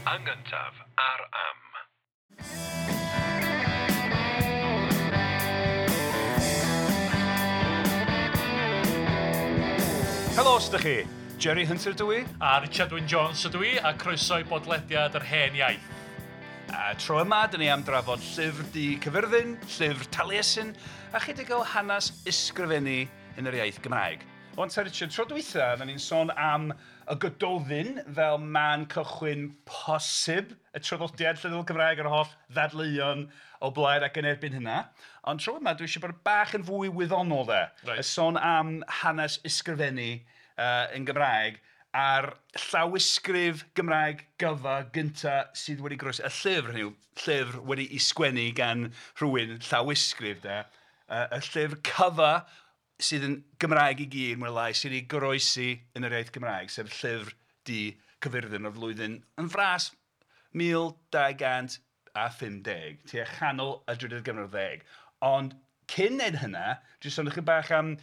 Yn gyntaf ar Am. Helo, os ydych chi? Jerry Hunter dw i. A Richard Wyn Jones ydw i, a croeso i bodlediad yr hen iaith. A tro yma, dyn ni am drafod llyfr du Cyfyrddin, llyfr Taliesin, a chydig o hanes ysgrifennu yn yr iaith Gymraeg. Ond ta Richard, tro dwytha, oedden ni'n sôn am y Gododdin fel man cychwyn posib y traddodiad llenyddol Cymraeg a'r holl ddadleuon o blaid ac yn erbyn hynna. Ond tro yma, dwi eisiau bod bach yn fwy wyddonol de. Reit. Y sôn am hanes ysgrifennu yn Gymraeg a'r llawysgrif Gymraeg gyfa gynta sydd wedi goroesi. Y llyfr, hynny yw, llyfr wedi'i sgwennu gan rhywun llawysgrif de. Y llyfr cyfa sydd yn Gymraeg i gyd, mwy neu lai, sydd wedi goroesi yn yr iaith Gymraeg, sef llyfr du Cyfyrddin o'r flwyddyn yn fras 1250, tua chanol y drydydd ganrif ar ddeg. Ond cyn neud hynna, dwi'n sôn ychydig bach am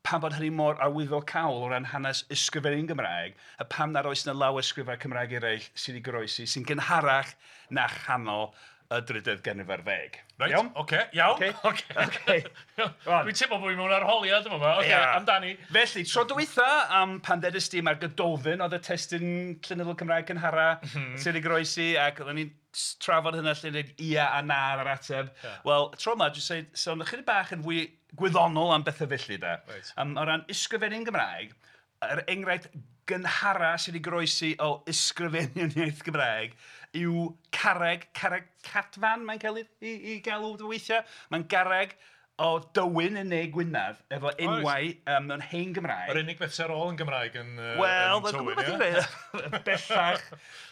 pam bod hynny mor arwyddocaol o ran hanes ysgrifennu yn Gymraeg, a pam nad oes 'na lawysgrifau Cymraeg eraill sydd wedi goroesi sy'n gynharach na chanol y drydydd ganrif ar ddeg. Reit, Iawn? Oce, iawn. Ocê. Oce. Rwan. Dwi'n teimlo bod fi mewn arholiad yma. Oce, Ia. amdani. Felly, tro dwytha, am pan ddedais di mae'r Gododdin oedd y testun llenyddol Cymraeg cynhara sydd wedi goroesi, ac oedden ni'n trafod hynna lle dweud ia a na ar yr ateb. Wel, tro yma, dwi'n dweud, sôn ychydig bach yn fwy gwyddonol am bethau felly, de. Reit. O ran ysgrifennu'n Gymraeg, yr enghraifft gynhara sydd wedi goroesi o ysgrifennu yn iaith Gymraeg yw carreg, carreg Cadfan mae'n cael ei galw weithiau. Mae'n garreg o Dywyn yn Ne Gwynedd efo enwau mewn hen Gymraeg. Yr unig beth sydd ar ôl yn Gymraeg yn Wel, yn mae'n Tywyn, gwybod beth ie? i'n dweud. Bellach.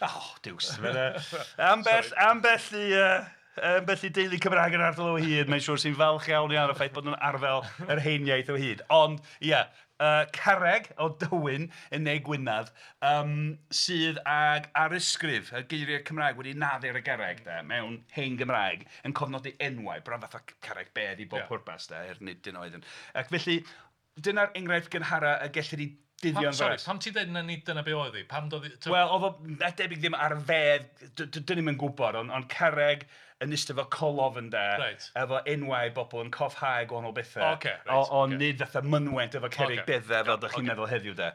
Oh, diws. Ambell i deulu Cymraeg yn ardal o hyd, mae'n siŵr sy'n falch iawn iawn o'r ffaith bod nhw'n arddel yr hen iaith o hyd. Ond, ia, carreg o Dywyn yn Ne Gwynedd sydd ag arysgrif, y geiriau Cymraeg wedi naddu ar y garreg, de, mewn hen Gymraeg, yn cofnodi enwau, bron fatha carreg bedd i bob pwrpas, de, er nid dyna oedd yn. Ac felly, dyna'r enghraifft gynhara y gellir ei dyddio'n Sorry, fras. pam ti'n dweud na nid dyna be oedd hi? Pam doedd hi... Wel, oedd o na debyg ddim ar fedd, dyn ni'm yn gwybod, ond carreg yn eistedd fel colofn de, efo enwau bobl yn cofhau gwahanol bethau. Ocê, reit, Ond nid fatha mynwent efo cerrig beddau fel dych chi'n meddwl heddiw de.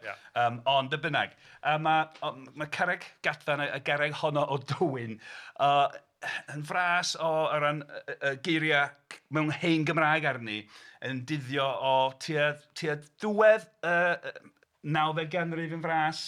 Ond be bynnag, mae carreg Gadfan, y garreg honno o Dywyn, yn fras o ran y geiriau mewn hen Gymraeg arni, yn dyddio o tua diwedd y 9fed ganrif yn fras,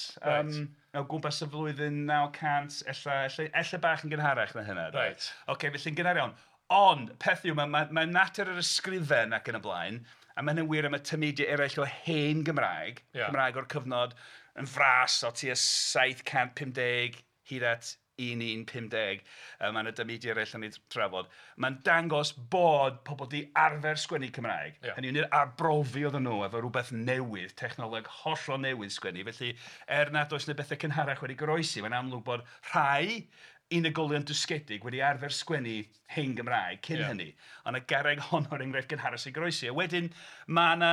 o gwmpas y flwyddyn 900, ella bach yn gynharach na hynna. Reit. Ocê, felly'n gynnar iawn. Ond, peth yw, mae natur yr ysgrifen ac yn y blaen, a mae hynny'n wir am y tameidiau eraill o hen Gymraeg, Cymraeg o'r cyfnod yn fras o tua 750 hyd at 1150, mae yna dameidiau eraill yn ei trafod. Mae'n dangos bod pobl di arfer sgwennu Cymraeg. Hynny yw, nid arbrofi oedden nhw efo rhywbeth newydd, technoleg hollol newydd sgwennu. Felly, er nad oes yna bethau cynharach wedi goroesi, mae'n amlwg bod rhai unigolion dysgedig wedi arfer sgwennu hen Gymraeg cyn hynny. Ond y garreg honno o'r enghraifft gynharach sy'n goroesi. A wedyn, mae yna,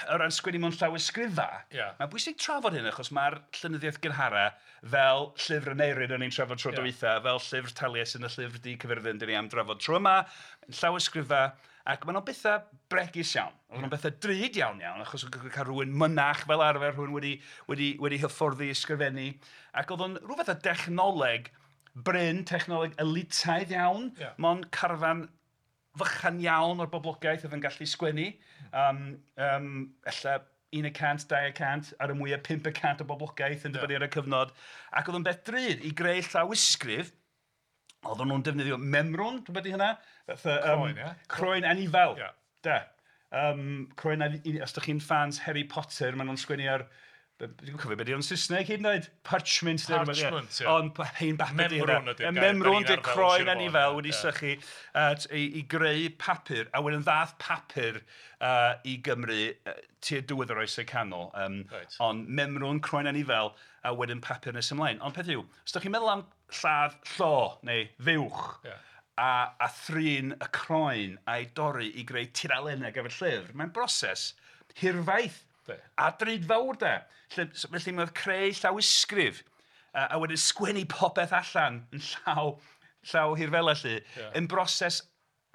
o ran sgwennu mewn llawysgrifau, mae'n bwysig trafod hyn achos mae'r llenyddiaeth gynhara fel llyfr Aneirin o'n i'n trafod tro dwytha, fel llyfr Taliesin y llyfr Du Cyfyrddin dyn ni am drafod tro yma, llawysgrifau, ac maen nhw'n bethau bregus iawn. Oedden nhw'n bethau drud iawn iawn, achos oedd cael rhywun mynach fel arfer, rhywun wedi hyfforddi ysgrifennu, ac oedd o'n rhyw fath o dechnoleg brin, technoleg elitaidd iawn, mond carfan fychan iawn o'r boblogaeth oedd yn gallu sgwennu. Ella 1%, 2%, ar y mwyaf 5% o boblogaeth yn dibynnu ar y cyfnod. Ac oedd o'n beth drud i greu llawysgrif. Oedden nhw'n defnyddio memrwn, dwi'n meddwl hynna? Fatha, Croen, ie? Croen anifail. Da. Croen anifail, os ydych chi'n fans Harry Potter, maen nhw'n sgwennu ar... Dwi'n cofio beth yw'n Saesneg hyd yn oed. Parchment. Parchment, ie. Ond hen bapur 'di hynna. Memrwn ydy'r gair. Memrwn 'di'r croen anifail wedi sychu i greu papur. A wedyn ddath papur i Gymru tua diwedd yr Oesau Canol. Ond memrwn, croen anifail, a wedyn papur nes ymlaen. Ond peth yw, os ydych chi'n meddwl am lladd llo neu fuwch, a thrin y croen a'i dorri i greu tudalennau gyfer llyfr, mae'n broses hirfaith a drud fawr de. Felly mae'n creu llawysgrif A wedyn sgwennu popeth allan yn llaw hirfela 'lly, yn broses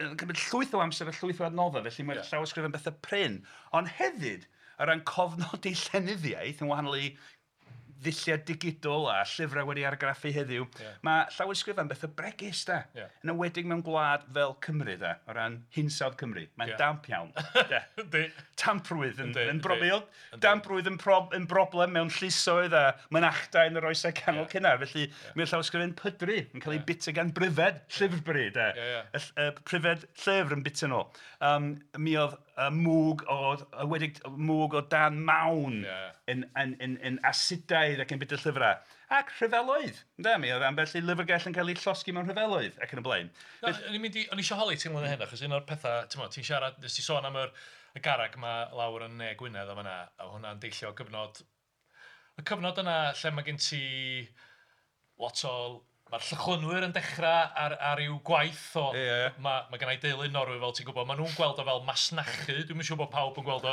yn cymryd llwyth o amser a llwyth o adnoddau, felly mae'r llawysgrifau'n bethau prin. Ond hefyd, o ran cofnodi llenyddiaeth, yn wahanol i ddulliau digidol a llyfrau wedi argraffu heddiw, mae llawysgrifau'n bethau bregus, de. Yn enwedig mewn gwlad fel Cymru, de, o ran hinsawdd Cymru. Mae'n damp iawn. Tamprwydd yn broblem. Damprwydd yn broblem mewn llysoedd a mynachdai yn yr oesau canol cynnar. Felly mae'r llawysgrifau'n pydru, yn cael ei bita gan bryfed, llyfrbry, de. Y pryfed llyfr yn bita nhw. Mi oedd mwg o dan mawn yn asidaidd ac yn bita llyfrau. Ac rhyfeloedd. Mi oedd ambell i lyfrgell yn cael ei llosgi mewn rhyfeloedd ac yn y blaen. O'n i eisiau holi ti'n ymlaen hyn, achos un o'r pethau, ti'n siarad, nes ti sôn am y garreg yma lawr yn Ne Gwynedd o fan'na, a hwnna'n deillio o gyfnod, y cyfnod yna lle mae gen ti lot o, mae'r llychlynwyr yn dechrau ar i'w gwaith o, mae gen i deulu Norwy fel ti'n gwybod, maen nhw'n gweld o fel masnachu, dwi'm yn siŵr bod pawb yn gweld o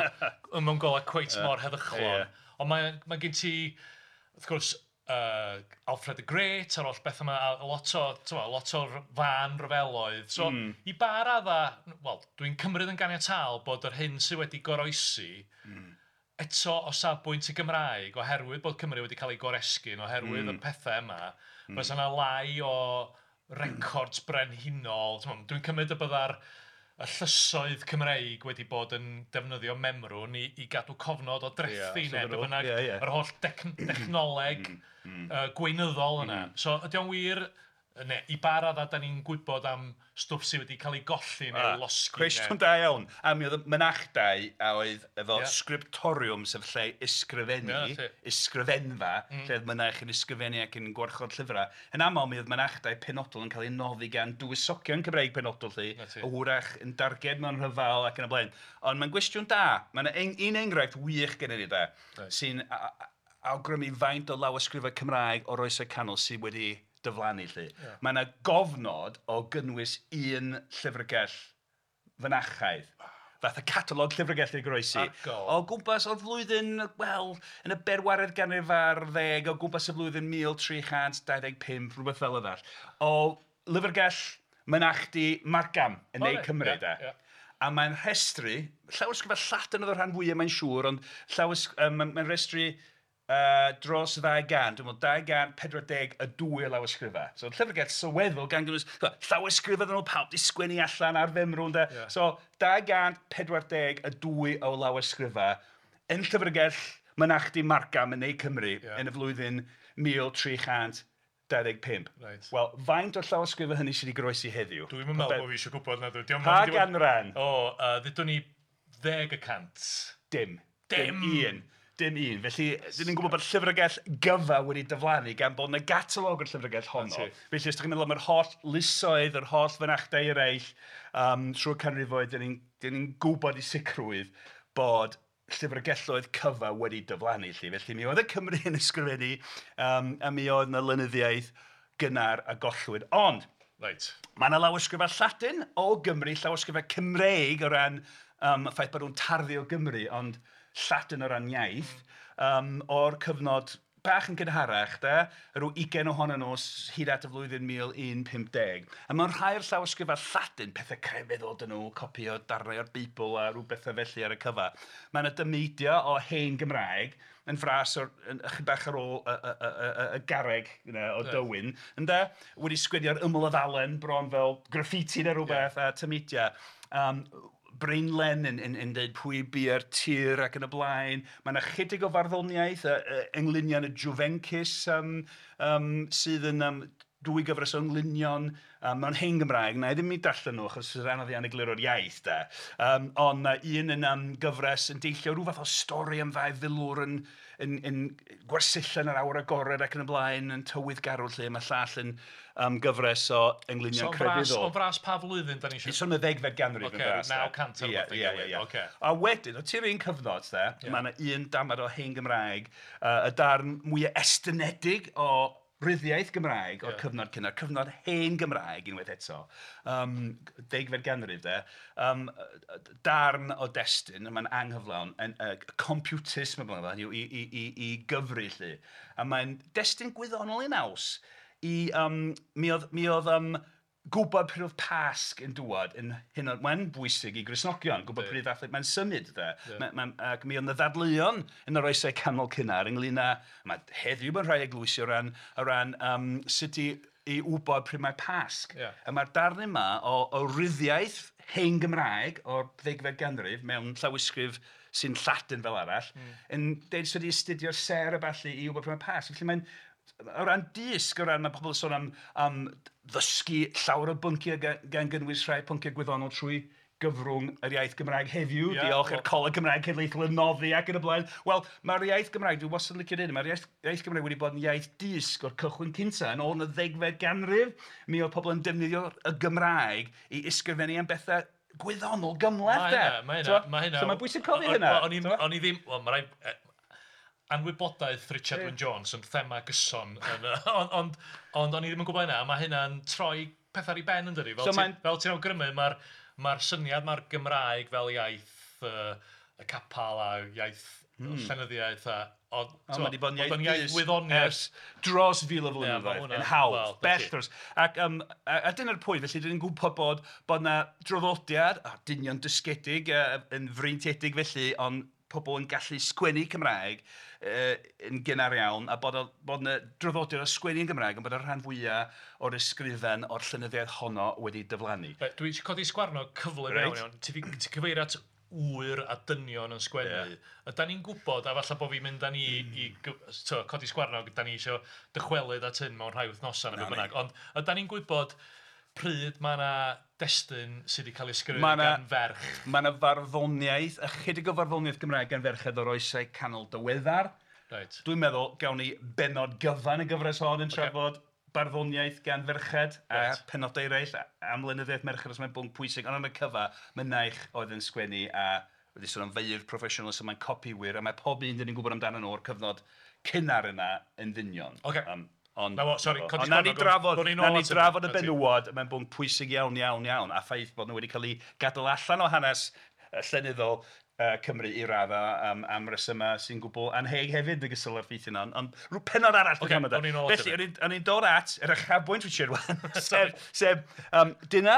mewn golau cweit mor heddychlon, ond mae gen ti, wrth gwrs, Alfred the Great a'r holl beth yma, a lot o'r fan ryfeloedd. So, i ba radda, wel, dwi'n cymryd yn ganiataol bod yr hyn sydd wedi goroesi eto o safbwynt y Gymraeg, oherwydd bod Cymru wedi cael ei goresgyn, oherwydd y pethau yma, fysa yna lai o records brenhinol. Dwi'n cymryd y bydda'r y llysoedd Cymreig wedi bod yn defnyddio memrwn i gadw cofnod o drethi neu be bynnag, yr holl dechnoleg gweinyddol yna. So ydy o'n wir, neu i ba raddau dan ni'n gwybod am stwff sydd wedi cael ei golli neu losgi? Cwestiwn da iawn. A mi oedd y mynachdai a oedd efo scriptorium, sef lle ysgrifennu, ysgrifenfa, lle oedd mynach yn ysgrifennu ac yn gwarchod llyfrau. Yn aml mi oedd mynachdai penodol yn cael ei noddi gan dywysogion Cymreig penodol 'lly, a hwyrach yn darged mewn rhyfel ac yn y blaen. Ond mae'n gwestiwn da. Mae yna un enghraifft wych gennym ni da, sy'n awgrymu faint o lawysgrifau Cymraeg o'r oesau canol sydd wedi diflannu 'lly. Mae yna gofnod o gynnwys un llyfrgell fynachaidd. Fath o catalog llyfrgell i goroesi. O gwmpas o'r flwyddyn, wel, yn y bedwaredd ganrif ar ddeg, o gwmpas y flwyddyn 1325, rhywbeth fel yna. O lyfrgell mynachdy Margam yn Ne Cymru, de. A mae'n rhestru, llawysgrifau Lladin oedd y rhan fwyaf mae'n siŵr, ond mae'n rhestru dros 200, dwi'n meddwl 242 o lawysgrifau. So llyfrgell sylweddol gan gynnwys llawysgrifau oedden nhw pawb 'di sgwennu allan ar femrwn de. So 242 o lawysgrifau yn llyfrgell mynachdy Margam yn Ne Cymru yn y flwyddyn 1325. Wel, faint o'r llawysgrifau hynny sydd wedi goroesi heddiw? Dwi'm yn meddwl bod fi eisiau gwybod na dwi. Pa ganran? O, ddudwn ni 10%. Dim. Dim un. Dim un. Felly, dyn ni'n gwybod bod llyfrgell gyfa wedi diflannu gan bod yna catalog o'r llyfrgell honno. Felly, os ydych chi'n meddwl am yr holl lysoedd, yr holl fynachdai eraill, trwy'r canrifoedd, dyn ni'n gwybod i sicrwydd bod llyfrgelloedd cyfa wedi diflannu. Felly, mi oedd y Cymru yn ysgrifennu, a mi oedd yna lenyddiaeth gynnar a gollwyd. Ond, mae yna lawysgrifau Lladin o Gymru, llawysgrifau Cymreig o ran y ffaith bod nhw'n tarddu o Gymru, ond Lladin o ran iaith, o'r cyfnod bach yn gynharach, de, rhyw 20 ohonyn nhw hyd at y flwyddyn 1150. A mewn rhai o'r llawysgrifau Lladin, pethau crefyddol dyn nhw, copi o darnau o'r Beibl a rhyw bethau felly ar y cyfa. Mae yna dameidiau o hen Gymraeg yn fras o'r, yn bach ar ôl y garreg o Dywyn, ynde? Wedi sgwennu ar ymyl y ddalen bron fel graffiti neu rhywbeth a tameidiau. Breinlen yn dweud pwy bu'r tir ac yn y blaen. Mae yna chydig o farddoniaeth, englynion y Juvencus sydd yn dwy gyfres o englynion mewn hen Gymraeg. Na i ddim i darllen nhw achos sy'n anodd iawn egluro'r iaith de. Ond mae un yn gyfres yn deillio rhyw fath o stori am ddau filwr yn gwersylla yn yr awyr agored ac yn y blaen yn tywydd garw lle. Mae llall yn gyfres o englynion crefyddol. O fras pa flwyddyn da ni eisiau? Sôn y ddegfed ganrif yn fras. 900 ar rhywbeth ei gilydd. A wedyn, o tua'r un cyfnod, de, mae yna un damad o hen Gymraeg, y darn mwyaf estynedig o ryddiaith Gymraeg o'r cyfnod cynnar, cyfnod hen Gymraeg unwaith eto, degfed ganrif de, darn o destun, mae'n anghyflawn, yn computus, mae'n blaen, hynny yw i gyfri 'lly. A mae'n destun gwyddonol ei naws i, mi oedd gwybod pryd oedd Pasg yn dŵad yn hynod, mae'n bwysig i Gristnogion, gwybod pryd ddathlu, mae'n symud de. Ac mi oedd 'na ddadleuon yn yr oesau canol cynnar ynglyn â, mae heddiw mewn rhai eglwysi o ran sut i wybod pryd mae Pasg. A mae'r darn yma o ryddiaith hen Gymraeg o'r ddegfed ganrif mewn llawysgrif sy'n Lladin fel arall, yn deud sut i astudio'r sêr a ballu i wybod pryd mae Pasg. Felly mae'n, o ran dysg, o ran mae pobl yn sôn am ddysgu llawer o bynciau gan gynnwys rhai pynciau gwyddonol trwy gyfrwng yr iaith Gymraeg heddiw, diolch i'r Coleg Cymraeg Cenedlaethol yn noddi ac yn y blaen. Wel, mae'r iaith Gymraeg, dwi wastad yn licio dweud, mae'r iaith Gymraeg wedi bod yn iaith dysg o'r cychwyn cyntaf. Yn ôl yn y ddegfed ganrif, mi oedd pobl yn defnyddio y Gymraeg i ysgrifennu am bethau gwyddonol gymhleth de. Mae hynna, mae hynna. So mae'n bwysig cofio hynna. O'n i ddim, wel, mae rhaid, anwybodaeth Richard Wyn Jones yn thema gyson, ond o'n i ddim yn gwybod hynna, a mae hynna'n troi pethau ar ei ben yn dydi. Fel ti'n awgrymu, mae'r syniad mae'r Gymraeg fel iaith y capel a iaith llenyddiaeth a... Ond mae wedi bod yn iaith wyddoniaeth ers dros fil o flynyddoedd, yn hawdd, bell dros. Ac a dyna'r pwynt, felly dyn ni'n gwybod bod 'na draddodiad, dynion dysgedig, yn freintiedig felly, ond pobl yn gallu sgwennu Cymraeg yn gynnar iawn, a bod yna draddodiad o sgwennu yn Gymraeg, ond bod y rhan fwyaf o'r ysgrifen o'r llenyddiaeth honno wedi diflannu. Dwi eisiau codi sgwarnog cyflym iawn iawn. Ti 'di cyfeirio at ŵyr a dynion yn sgwennu. Ydan ni'n gwybod, a falle bod fi'n mynd â ni i codi sgwarnog, dan ni eisiau dychwelyd at hyn mewn rhai wythnosau neu beth bynnag, ond ydan ni'n gwybod pryd mae yna destun sydd wedi cael ei sgrifennu gan ferch? Mae yna farddoniaeth, ychydig o farddoniaeth Gymraeg gan ferched o'r oesau canol diweddar. Reit. Dwi'n meddwl gawn ni bennod gyfan y gyfres hon yn trafod barddoniaeth gan ferched a penodau eraill am lenyddiaeth merched, os mae'n bwnc pwysig, ond am y cyfa, mynaich oedd yn sgwennu a wedi sôn am feirdd proffesiynol, so mae'n copiwyr, a mae pob un dyn ni'n gwybod amdano nhw o'r cyfnod cynnar yna yn ddynion. Ocê. Ond Na fo, sori, codi na ni drafod, na ni drafod y benywod, mae'n bwnc pwysig iawn, iawn, iawn, a ffaith bod nhw wedi cael eu gadael allan o hanes llenyddol Cymru i raddau am resymau sy'n gwbl anheg hefyd yn ogystal â'r ffeithiau yna, ond rhyw pennod arall dwi'n okay, Felly, o'n i'n dod at yr uchafbwynt Richard wan, sef dyna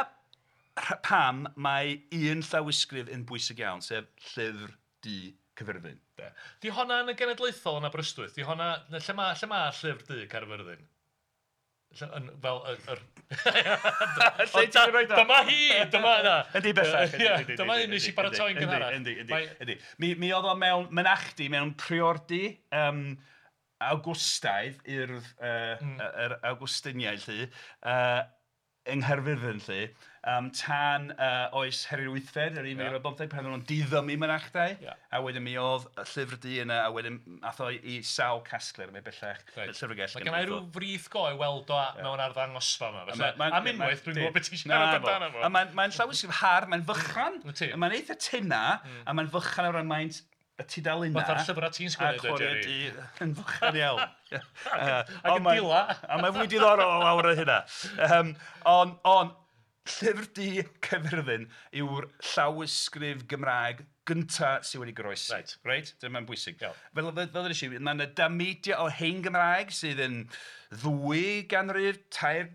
pam mae un llawysgrif yn bwysig iawn, sef Llyfr Du Caerfyrddin. Di honna yn y Genedlaethol yn Aberystwyth? Di honna, lle ma Llyfr Du Caerfyrddin? Fel yr... Lle ti'n rhoi o? Dyma hi! Dyma yna! Yndi bellach. Dyma un nes i baratoi'n gynharach. Yndi, yndi. Mi oedd o mewn mynachdy, mewn priordy Awgwstaidd, urdd yr Awgwstiniaid 'lly, yng Nghaerfyrddin 'lly, tan oes Harri'r Wythfed, yr 1015, pan oedden nhw'n diddymu mynachdai, a wedyn mi oedd y Llyfr Du yna, a wedyn aeth o i sawl casgliad, mae bellach y llyfrgell. Mae genna i ryw frith go i weld o mewn arddangosfa yma, felly am unwaith dwi'n gwybod beth ti'n siarad amdano fo. A mae'n llawysgrif hardd, mae'n fychan, mae'n eitha tynna, a mae'n fychan o ran maint y tudalennau. Fatha'r llyfrau ti'n sgwennu, dweud, Jerry. Yn fychan iawn. Ac yn dila. A mae'n fwy diddorol o lawr o hynna. Ond, Llyfr Du Caerfyrddin yw'r llawysgrif Gymraeg gynta sydd wedi goroesi. Reit. Dyma'n bwysig. Fel ddwedes i, mae yna dameidiau o hen Gymraeg sydd yn 2 ganrif, 3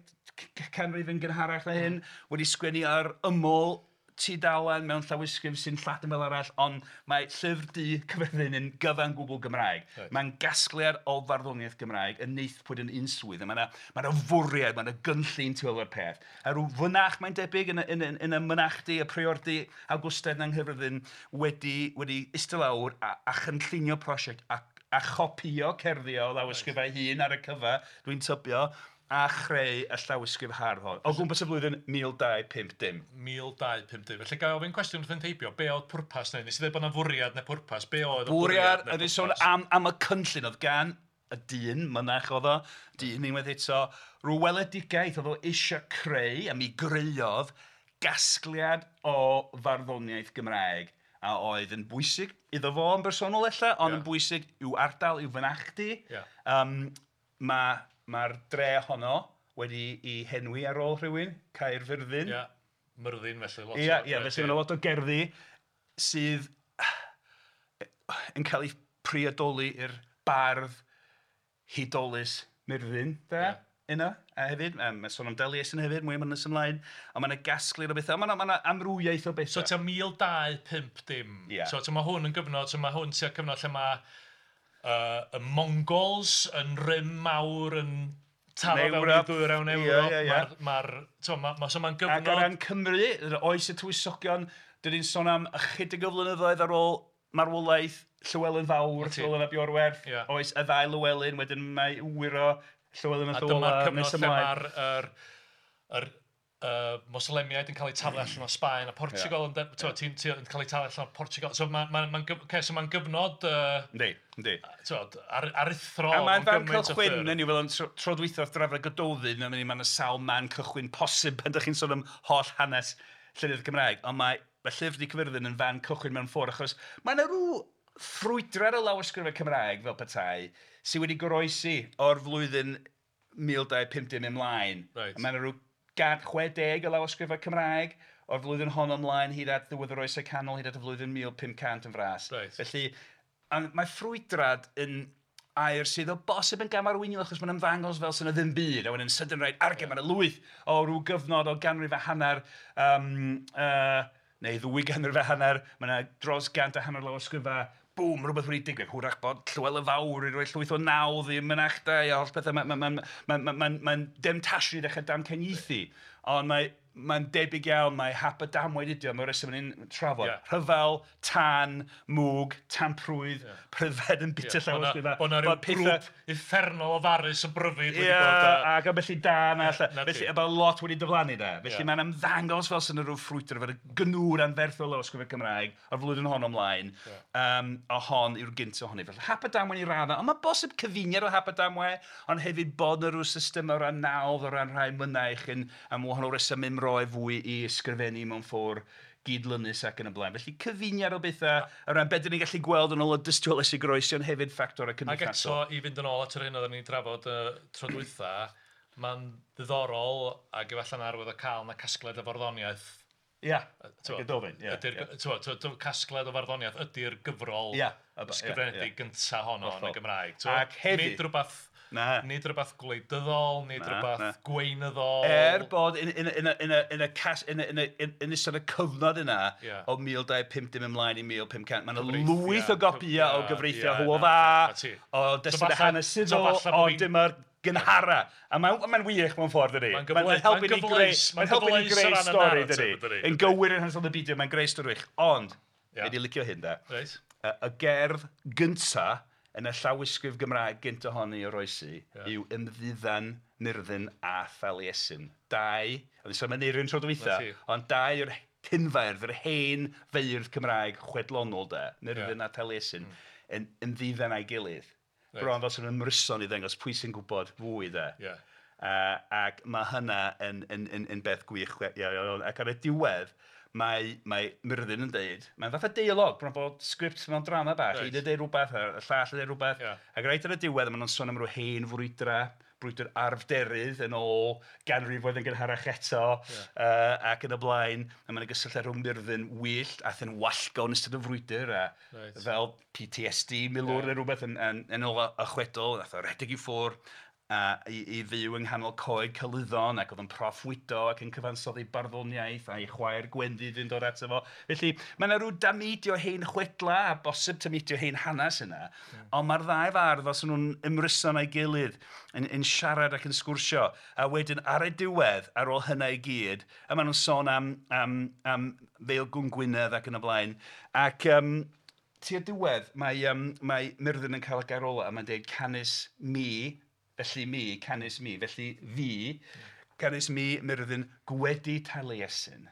canrif yn gynharach na hyn, wedi sgwennu ar ymyl tudalen mewn llawysgrif sy'n Lladin fel arall, ond mae Llyfr Du Caerfyrddin yn gyfan gwbl Gymraeg. Right. Mae'n gasgliad o farddoniaeth Gymraeg yn neithpwyd yn unswydd. Mae yna fwriad, mae yna gynllun tu ôl i'r peth. A rhyw fynach, mae'n debyg, yn y mynachdy, y priordy Awgwstaidd yng Nghaerfyrddin wedi eistedd lawr a chynllunio prosiect a chopïo cerddi o lawysgrifau hun ar y cyfa, dwi'n tybio, a chreu y llawysgrif hardd hon. O gwmpas y flwyddyn 1250. 1250. Felly gael ofyn cwestiwn wrth yn teibio, be oedd pwrpas neu? Nes i ddweud bod yna fwriad neu pwrpas, be oedd y bwriad neu pwrpas? Ydy sôn am y cynllun oedd gan y dyn, mynach oedd o, dyn unwaith eto, rhyw weledigaeth oedd o eisiau creu, a mi greuodd gasgliad o farddoniaeth Gymraeg a oedd yn bwysig iddo fo yn bersonol ella, ond yn bwysig i'w ardal, i'w fynachdy. Mae'r dre honno wedi ei henwi ar ôl rhywun, Caerfyrddin. Ia, Myrddin felly. Lot ia, ia, felly mae 'na lot o gerddi sydd yn cael eu priodoli i'r bardd hudolus Myrddin, de. Ia. Yna, a hefyd, mae'n sôn am Daliesin hefyd, mwy am hynny nes ymlaen, ond mae 'na gasgliad o bethau, mae 'na, mae 'na amrywiaeth o bethau. So tua 1250. Ia. So mae hwn yn gyfnod, so mae hwn tua cyfnod lle mae y Mongols yn rym mawr yn taro fewn i ddwyrain Ewrop. Mae'r... Mae'r... Ma, so mae'n gyfnod... Ac o ran Cymru, oes y tywysogion, dan ni'n sôn am ychydig o flynyddoedd ar ôl marwolaeth Llywelyn Fawr, Llywelyn ap Iorwerth, oes y ddau Lywelyn, wedyn mae wyr o Llywelyn ein Llyw Olaf A dyma'r cyfnod lle mae'r yr, yr, uh, Moslemiaid yn cael eu taflu allan o Sbaen a Portugal yn ti'n ti, yn cael eu taflu allan o Portugal. So mae'n ma, ma, okay, so ma gyfnod Yndi, yndi. T'wod, aruthrol. A mae'n fan cychwyn, yn yw, fel yn tro dwytha wrth drafod Gododdin, mae yna sawl man cychwyn posib pan ydych chi'n sôn am holl hanes llenyddiaeth Gymraeg, ond mae Llyfr Du Caerfyrddin yn fan cychwyn mewn ffordd, achos mae yna rhyw ffrwydrad o lawysgrifau Cymraeg fel petai sydd wedi goroesi o'r flwyddyn 1250 ymlaen. Reit. Mae yna rhyw 160 o lawysgrifau Cymraeg o'r flwyddyn honno ymlaen hyd at ddiwedd yr Oesau Canol, hyd at y flwyddyn 1500 yn fras. Reit. Felly, mae ffrwydrad yn air sydd o bosib yn gamarweiniol achos mae'n ymddangos fel sy'n ddim byd a wedyn sydyn reit arge yeah. Mae'n lwyth o ryw gyfnod o ganrif a hanner neu ddwy ganrif a hanner, mae yna dros 150 lawysgrifau, bwm, rhywbeth wedi digwydd. Hwrach bod Llywelyn Fawr wedi rhoi llwyth o nawdd i mynachdai a holl bethau. Mae'n ma, ma, ma, ma, ma, ma demtasiwn i ddechrau damcaniaethu. Ond mae'n debyg iawn, mae hap a damwain ydi o, mae'r reswm ni'n trafod. Yeah. Rhyfel, tân, mwg, tamprwydd, yeah. pryfed yn bita yeah. llawysgrifau. Bod 'na ryw grŵp uffernol o farus o bryfid wedi bod. Ac a felly da na allan. Felly, a bod lot wedi diflannu da. Felly mae'n ymddangos fel sy'n rhyw ffrwydr, fel y gnwr anferthol o lawysgrifau Cymraeg o'r flwyddyn hon ymlaen. A hon yw'r gyntaf ohoni. Felly hap a damwain i raddau, ond mae bosib cyfuniad o hap a damwain, ond hefyd bod 'na rhyw system o ran nawdd, o ran rhai mynaich yn am wahanol reswm ymroi fwy i ysgrifennu mewn ffordd gydlynus ac yn y blaen. Felly cyfuniad o bethau o ran beth dan ni'n gallu gweld yn ôl y dystiolaeth sy'n goroesi, ond hefyd ffactorau cymdeithasol. Ac eto, i fynd yn ôl at yr hyn oedden ni'n drafod tro dwytha, mae'n ddiddorol ac efallai'n arwydd o cael na casgliad o farddoniaeth. Ia, Gododdin. Ydy'r casgliad o farddoniaeth ydy'r gyfrol ysgrifenedig gyntaf honno yn y Gymraeg. Ac hefyd... Nid rhywbeth... Na. Nid rhywbeth gwleidyddol, nid rhywbeth gweinyddol. Er bod yn ystod y cyfnod yna o 1250 ymlaen i 1500, mae yna lwyth o gopïau o gyfreithiau Hywel Dda, o destunau hanesyddol, o dyma'r gynhara. A mae'n wych mewn ffordd, dydi? Mae'n helpu ni greu, mae'n helpu ni greu stori, dydi? Yn gywir yn hanesyddol y byd, mae'n greu stori wych. Ond, wedi licio hyn, da. Y gerdd gynta yn y llawysgrif Gymraeg gynt ohoni oroesi yw Ymddiddan Myrddin a Thaliesin. Dau, oedd sôn am Aneirin tro dwytha, ond dau o'r cynfeirdd, yr hen feirdd Cymraeg chwedlonol de, Myrddin a Thaliesin, yn ymddiddan a'i gilydd. Right. Bron fel sy'n ymryson i ddangos pwy sy'n gwybod fwy de. Yeah. Ac mae hynna yn beth gwych. Ac ar y diwedd, mae Myrddin yn deud, mae'n fath o deialog, bron bod sgript mewn drama bach, Right. un yn deud rhywbeth, y llall yn deud rhywbeth, Yeah. ac reit ar y diwedd, maen nhw'n sôn am ryw hen frwydra, brwydr arfderydd yn ôl ganrifoedd yn gynharach eto, ac yn y blaen, a mae'n gysylltiad rhwng Myrddin wyllt a thyn wallgo yn ystod y frwydr, a Reit. fel PTSD milwr neu rhywbeth yn ôl y chwedl, nath o redeg i ffwrdd, a i fyw yng nghanol coed Celyddon ac oedd yn proffwydo ac yn cyfansoddi barddoniaeth a'i chwaer Gwenddydd yn dod ato fo. Felly mae yna rhyw dameidio hen chwedla a bosib tameidio hen hanes yna, ond mae'r ddau fardd fel sy'n nhw'n ymryson a'i gilydd yn siarad ac yn sgwrsio, a wedyn ar y diwedd, ar ôl hynna i gyd, a maen nhw'n sôn am Feilgwn Gwynedd ac yn y blaen, ac tua'r diwedd mae Myrddin yn cael y gair ola a mae'n dweud canys mi, felly mi, canys mi, felly fi, canys mi Myrddin gwedi Taliesin,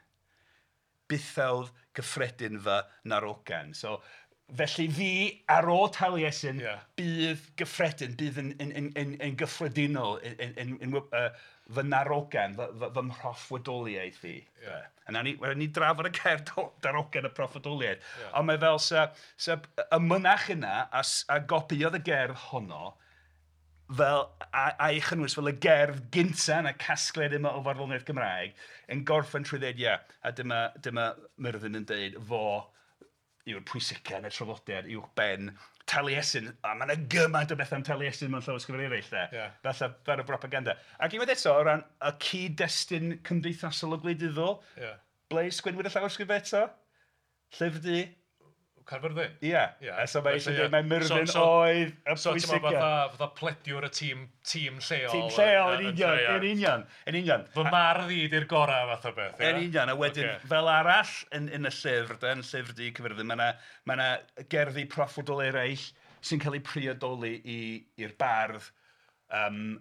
bythawdd gyffredin fy narogan. So, felly fi, ar ôl Taliesin, bydd gyffredin, bydd yn gyffredinol, yn fy narogan, fy mhroffwydoliaeth i. Yeah. A nawn ni drafod y gair darogan y proffwydoliaeth. Yeah. Ond mae fel sa y mynach yna, a gopiodd y gerdd honno, fel a'i chynnwys fel y gerdd gynta yn y casgliad yma o farddoniaeth Gymraeg, yn gorffen trwy ddeud ia, a dyma Myrddin yn deud fo yw'r pwysica yn y traddodiad uwch ben Taliesin, a mae yna gymaint o bethau am Taliesin mewn llawysgrifau eraill de. Yeah. Falle fel y propaganda. Ac unwaith eto, o ran y cyd-destun cymdeithasol o gwleidyddol, ble sgwennwyd y llawysgrifau eto? Llyfr Du? Caerfyrddin? Ia. Yeah. A so mae eisiau dweud, mae Myrddin oedd y So ti'n pwysica. meddwl fatha plediwr y tîm lleol. Tîm lleol, yn union, yn union, yn union. Fy mardd i di'r gorau fath o beth, Yn union, a wedyn fel arall yn y llyfr, yn Llyfr Du Caerfyrddin, mae yna gerddi proffwydol eraill sy'n cael eu priodoli i'r bardd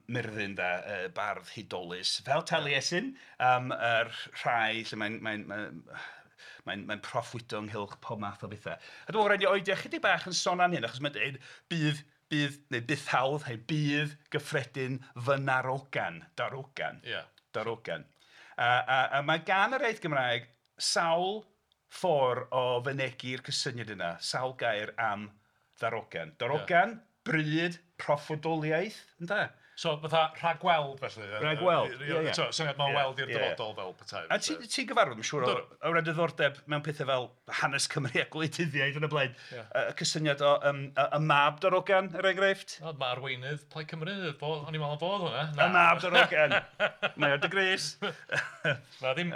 Myrddin, de, bardd hudolus, fel Taliesin, yr rhai lle mae'n proffwydo ynghylch pob math o bethau. A dwi'n meddwl rhaid i oedi ychydig bach yn sôn am hyn, achos mae'n dweud bydd, neu bythawdd, neu bydd gyffredin fy narogan, darogan. Yeah. Darogan. A mae gan yr iaith Gymraeg sawl ffordd o fynegi'r cysyniad yna, sawl gair am ddarogan. Darogan, bryd, proffwydoliaeth, ynde? So fatha rhagweld felly. Rhagweld, ie, ie. So, syniad mae'n weld i'r dyfodol fel petai. A ti'n gyfarwydd, mae'n siŵr, o ran diddordeb mewn pethau fel hanes Cymru a gwleidyddiaeth yn y blaen. Y cysyniad o y mab darogan, er enghraifft. O, mae arweinydd Plaid Cymru, o'n i'n meddwl am fod hwnna. Y mab darogan. Mae ar dy grys. Na ddim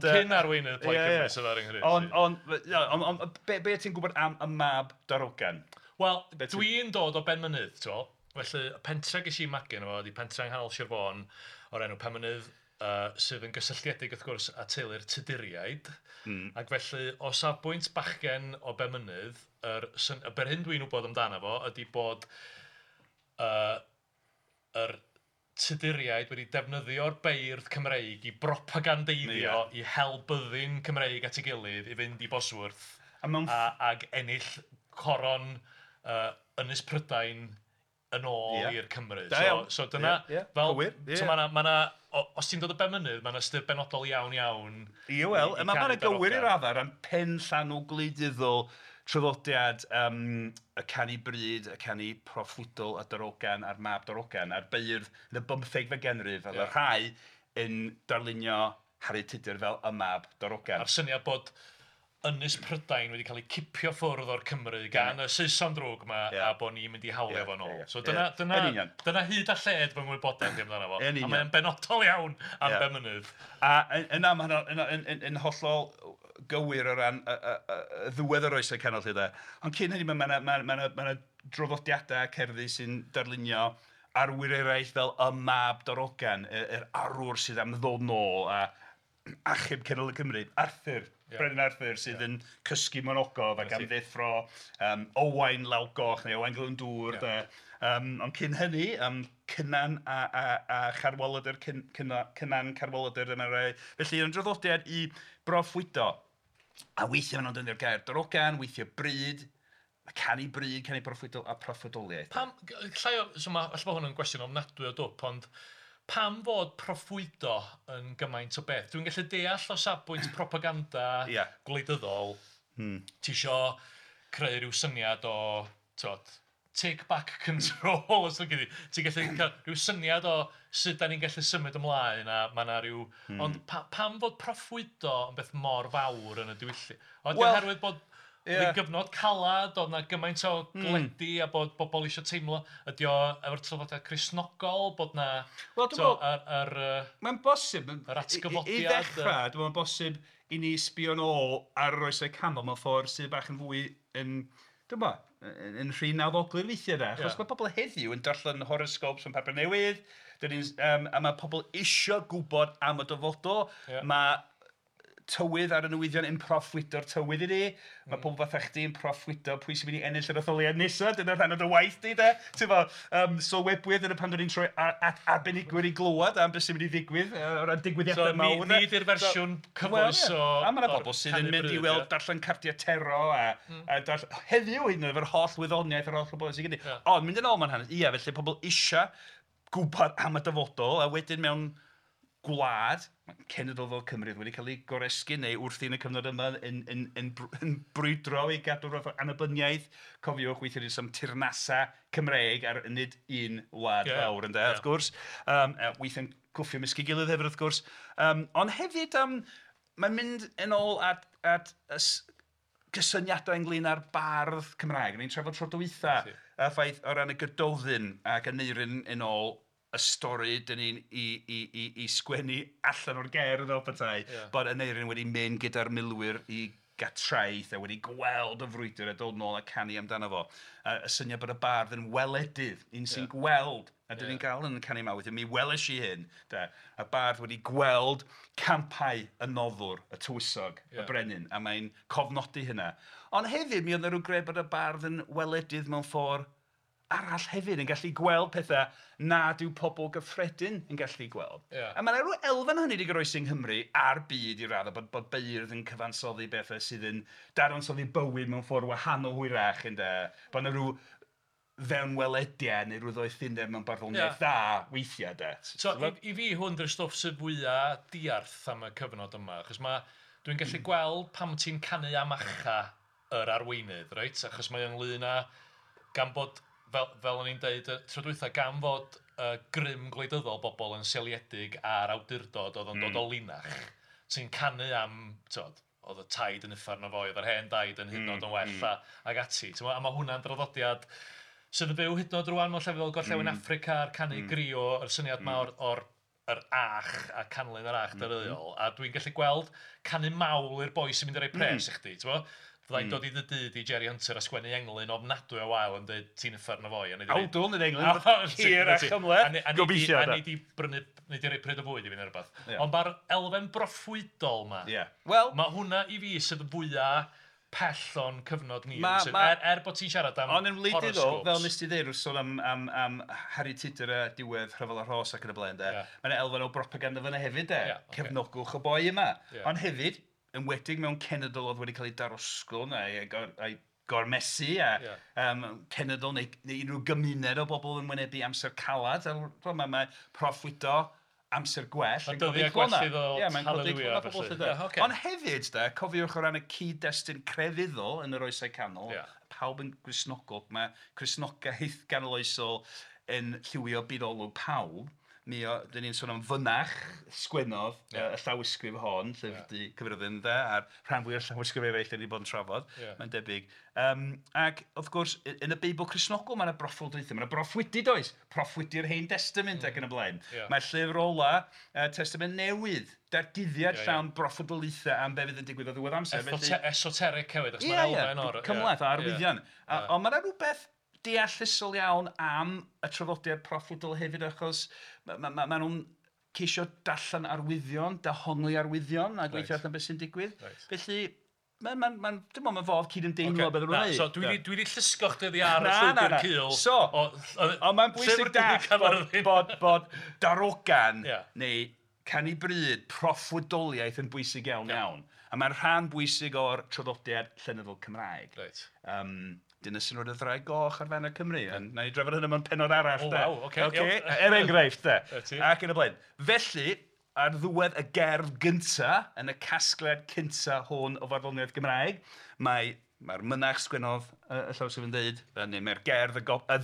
cyn arweinydd Plaid Cymru sydd ar yng Nghymru. Ond be ti'n gwybod am y mab darogan? Wel, dwi'n dod o Benmynydd, ti'n gweld? Felly, y pentre ges i magu yno fo ydi pentre yng nghanol Sir Fôn o'r enw Penmynydd, sydd yn gysylltiedig wrth gwrs â teulu'r Tuduriaid. Ac felly, o safbwynt bachgen o Benmynydd, yr hyn dwi'n wybod amdano fo ydi bod yr Tuduriaid wedi defnyddio'r beirdd Cymreig i propagandeiddio, i hel byddin Cymreig at ei gilydd i fynd i Bosworth ag ennill coron Ynys Prydain yn ôl i'r Cymru. So dyna, fel, so ma' 'na, os ti'n dod o Benmynydd, ma' 'na ystyr benodol iawn iawn. Ie, wel, mae 'na gywir i'r raddau ran penllanw gwleidyddol traddodiad y canu bryd, y canu proffwydol a darogan a'r mab darogan a'r beirdd yn y 15fed ganrif, oedd y rhai yn darlunio Harri Tudur fel y mab darogan. A'r syniad bod Ynys Prydain wedi cael ei cipio ffwrdd o'r Cymru gan y Saeson drwg yma a bod ni'n mynd i hawlio fo nôl. So dyna hyd a lled fy ngwybodaeth i amdano fo. A mae'n benodol iawn am Benmynydd. A yna mae hynny'n hollol gywir o ran y ddiwedd yr oesau canol lle de. Ond cyn hynny mae yna draddodiadau cerddi sy'n darlunio arwyr eraill fel y mab darogan, yr arwr sydd am ddod nôl a achub cenedl y Cymru, Arthur. Brenin Arthur sydd yn cysgu mewn ogof ac am ddeffro Owain Lawgoch neu Owain Glyndŵr. Ond cyn hynny, Cynan a Charwaladr, Cynan Carwaladr yma rai. Felly, yn draddodiad i broffwydo. A weithiau maen nhw'n defnyddio'r gair darogan, weithiau bryd, canu bryd, canu proffwydol a proffwydoliaeth. Pam, so alla bod hwn yn gwestiwn ofnadwy o dwp, ond pam fod proffwydo yn gymaint o beth? Dwi'n gallu deall o safbwynt propaganda gwleidyddol. Ti isio creu rhyw syniad o, t'wod, take back control, os ti'n gallu. Ti'n gallu cael rhyw syniad o sut da ni'n gallu symud ymlaen a mae yna rhyw... Ond pam fod proffwydo yn beth mor fawr yn y diwylliant? Ond oherwydd bod oedd hi'n gyfnod calad, oedd 'na gymaint o gledi a bod bobl eisiau teimlo, ydy o efo'r traddodiad Cristnogol, bod 'na... Wel, dwi'n meddwl, mae'n bosib, yr atgyfodiad. I ddechrau, dwi'n meddwl bosib i ni sbio'n ôl ar yr oesau canol mewn ffordd sydd bach yn fwy yn, dwi'n meddwl, yn rhy nawddoglyd weithiau de. Achos mae pobl heddiw yn darllen horoscopes yn papur newydd, a mae pobl isio gwybod am y dyfodol. Mae tywydd ar y newyddion yn proffwydo'r tywydd i ni. Mae pobl fatha chdi yn proffwydo pwy sy'n mynd i ennill yr etholiad nesaf. Dyna rhan o dy waith di, de. Ti'n fo, sylwebwyr, dyna pan dyn ni'n troi at arbenigwyr i glywed am beth sy'n mynd i ddigwydd o ran digwyddiadau mawr. So, ni di'r fersiwn cyfoes o... A mae yna bobl sydd yn mynd i weld darllen cardiau tarot a heddiw hyd yn oed efo'r holl wyddoniaeth a'r holl wybodaeth sydd gen i. Ond mynd yn ôl mewn hanes, ia, felly pobl eisiau gwybod am y dyfodol a wedyn mewn gwlad, cenedl fel Cymru wedi cael ei goresgyn neu wrthi yn y cyfnod yma yn brwydro i gadw fath o annibyniaeth. Cofiwch, weithiau ni'n sôn am teyrnasau Cymreig ar nid un wlad fawr, ynde, wrth gwrs. Weithiau'n cwffio ymysg ei gilydd hefyd, wrth gwrs. Ond hefyd, mae'n mynd yn ôl at cysyniadau ynglyn â'r bardd Cymraeg. Ni'n trafod tro dwytha, y ffaith o ran y Gododdin ac Aneirin yn ôl y stori dan ni'n i sgwennu allan o'r gerdd fel petai, bod Aneirin wedi mynd gyda'r milwyr i Gatraeth a wedi gweld y frwydr a dod nôl a canu amdano fo. Y syniad bod y bardd yn weledydd, un sy'n gweld, a dan ni'n gael yn y canu yma weithiau, mi weles i hyn, de, y bardd wedi gweld campau y noddwr, y tywysog, y brenin, a mae'n cofnodi hynna. Ond hefyd mi oedd 'na ryw gred bod y bardd yn weledydd mewn ffordd arall hefyd, yn gallu gweld pethau nad yw pobl gyffredin yn gallu gweld. A mae 'na ryw elfen o hynny 'di goroesi yng Nghymru a'r byd i raddau, bod beirdd yn cyfansoddi bethau sydd yn dadansoddi bywyd mewn ffordd wahanol hwyrach, ynde. Bod 'na ryw fewnwelediad neu ryw ddoethineb mewn barddoniaeth dda weithiau, de. So i fi hwn 'di'r stwff sydd fwya diarth am y cyfnod yma, achos mae... dwi'n gallu gweld pam ti'n canu am achau yr arweinydd, reit? Achos mae o ynglyn â... gan bod, fel o'n i'n deud y tro dwytha, gan fod y grym gwleidyddol bobl yn seiliedig ar awdurdod oedd yn dod o linach, ti'n canu am, ti'mod, oedd y taid yn uffern o foi, oedd yr hen daid yn hyd yn oed yn well ac ati, ti'mod? A mae hwnna'n draddodiad sydd yn fyw hyd yn oed rŵan mewn llefydd fel Gorllewin Affrica a'r canu griot, yr syniad 'ma o'r yr ach a canlyn yr ach dyreuol, a dwi'n gallu gweld canu mawl i'r boi sy'n mynd i roi pres i chdi, ti'mod? Fydda i'n dod i dy dŷ di Jerry Hunter a sgwennu englyn ofnadwy o wael yn dweud ti'n uffern o foi a nei di... Awdl nid englyn, hir a chymhleth, gobeithio de. A nei di brynu, nei di roi pryd o fwyd i fi neu rywbeth. Ond mae'r elfen broffwydol 'ma, Wel... mae hwnna i fi sydd fwya pell o'n cyfnod ni. Er bod ti'n siarad am Ond yn wleidyddol, fel nes ti ddeud wrth sôn am Harri Tudur a diwedd Rhyfel y Rhos ac yn y blaen de, mae 'na elfen o bropaganda fan'na hefyd de, cefnogwch y boi yma. Ond hefyd, enwedig mewn cenedl oedd wedi cael ei darosgwrn a'i gormesu a cenedl neu unrhyw gymuned o bobl yn wynebu amser calad, mae proffwydo amser gwell yn codi clona. Y dyddiau gwell i ddod, haleliwia felly. Ond hefyd, de, cofiwch o ran y cyd-destun crefyddol yn yr Oesau Canol, pawb yn Gristnogol, mae Cristnogaeth ganoloesol yn lliwio byd olwg pawb. Mi o, dyn ni'n sôn am fynach sgwennodd y llawysgrif hon, Llyfr Du Caerfyrddin, ynde, a'r rhan fwyaf o'r llawysgrif eraill dan ni 'di bod yn trafod, mae'n debyg. Ac wrth gwrs, yn y Beibl Cristnogol mae 'na broffwyddoedd, mae 'na broffwydi does, proffwydi'r Hen Destament ac yn y blaen. Mae llyfr ola Testament Newydd, datguddiad llawn broffwydoliaethau am be fydd yn digwydd o ddiwedd amser. Esoteric hefyd, achos mae'n elfen o'r... Cymhleth, arwyddion. Ond mae 'na rhywbeth deallusol iawn am y traddodiad proffwydol hefyd achos ma' nhw'n ceisio darllen arwyddion, dehongli arwyddion a gweithio allan beth sy'n digwydd. Felly, mae'n, dwi'n meddwl mae'n fodd cydymdeimlo beth nhw'n So dwi 'di llusgo chdi oddi ar y llwybr cul. So, ond mae'n bwysig dallt bod darogan neu canu bryd, proffwydoliaeth yn bwysig iawn iawn. A mae'n rhan bwysig o'r traddodiad llenyddol Cymraeg. Dyna sy'n rhoi'r ddraig goch ar faner Cymru. Ond wna i drafod hynny mewn pennod arall de. O waw, ocê. Ocê, er enghraifft de. Ac yn y blaen. Felly, ar ddiwedd y gerdd gynta, yn y casgliad cynta hwn o farddoniaeth Gymraeg, mae, mae'r mynach sgwennodd y llawysgrif yn dweud, neu mae'r gerdd y,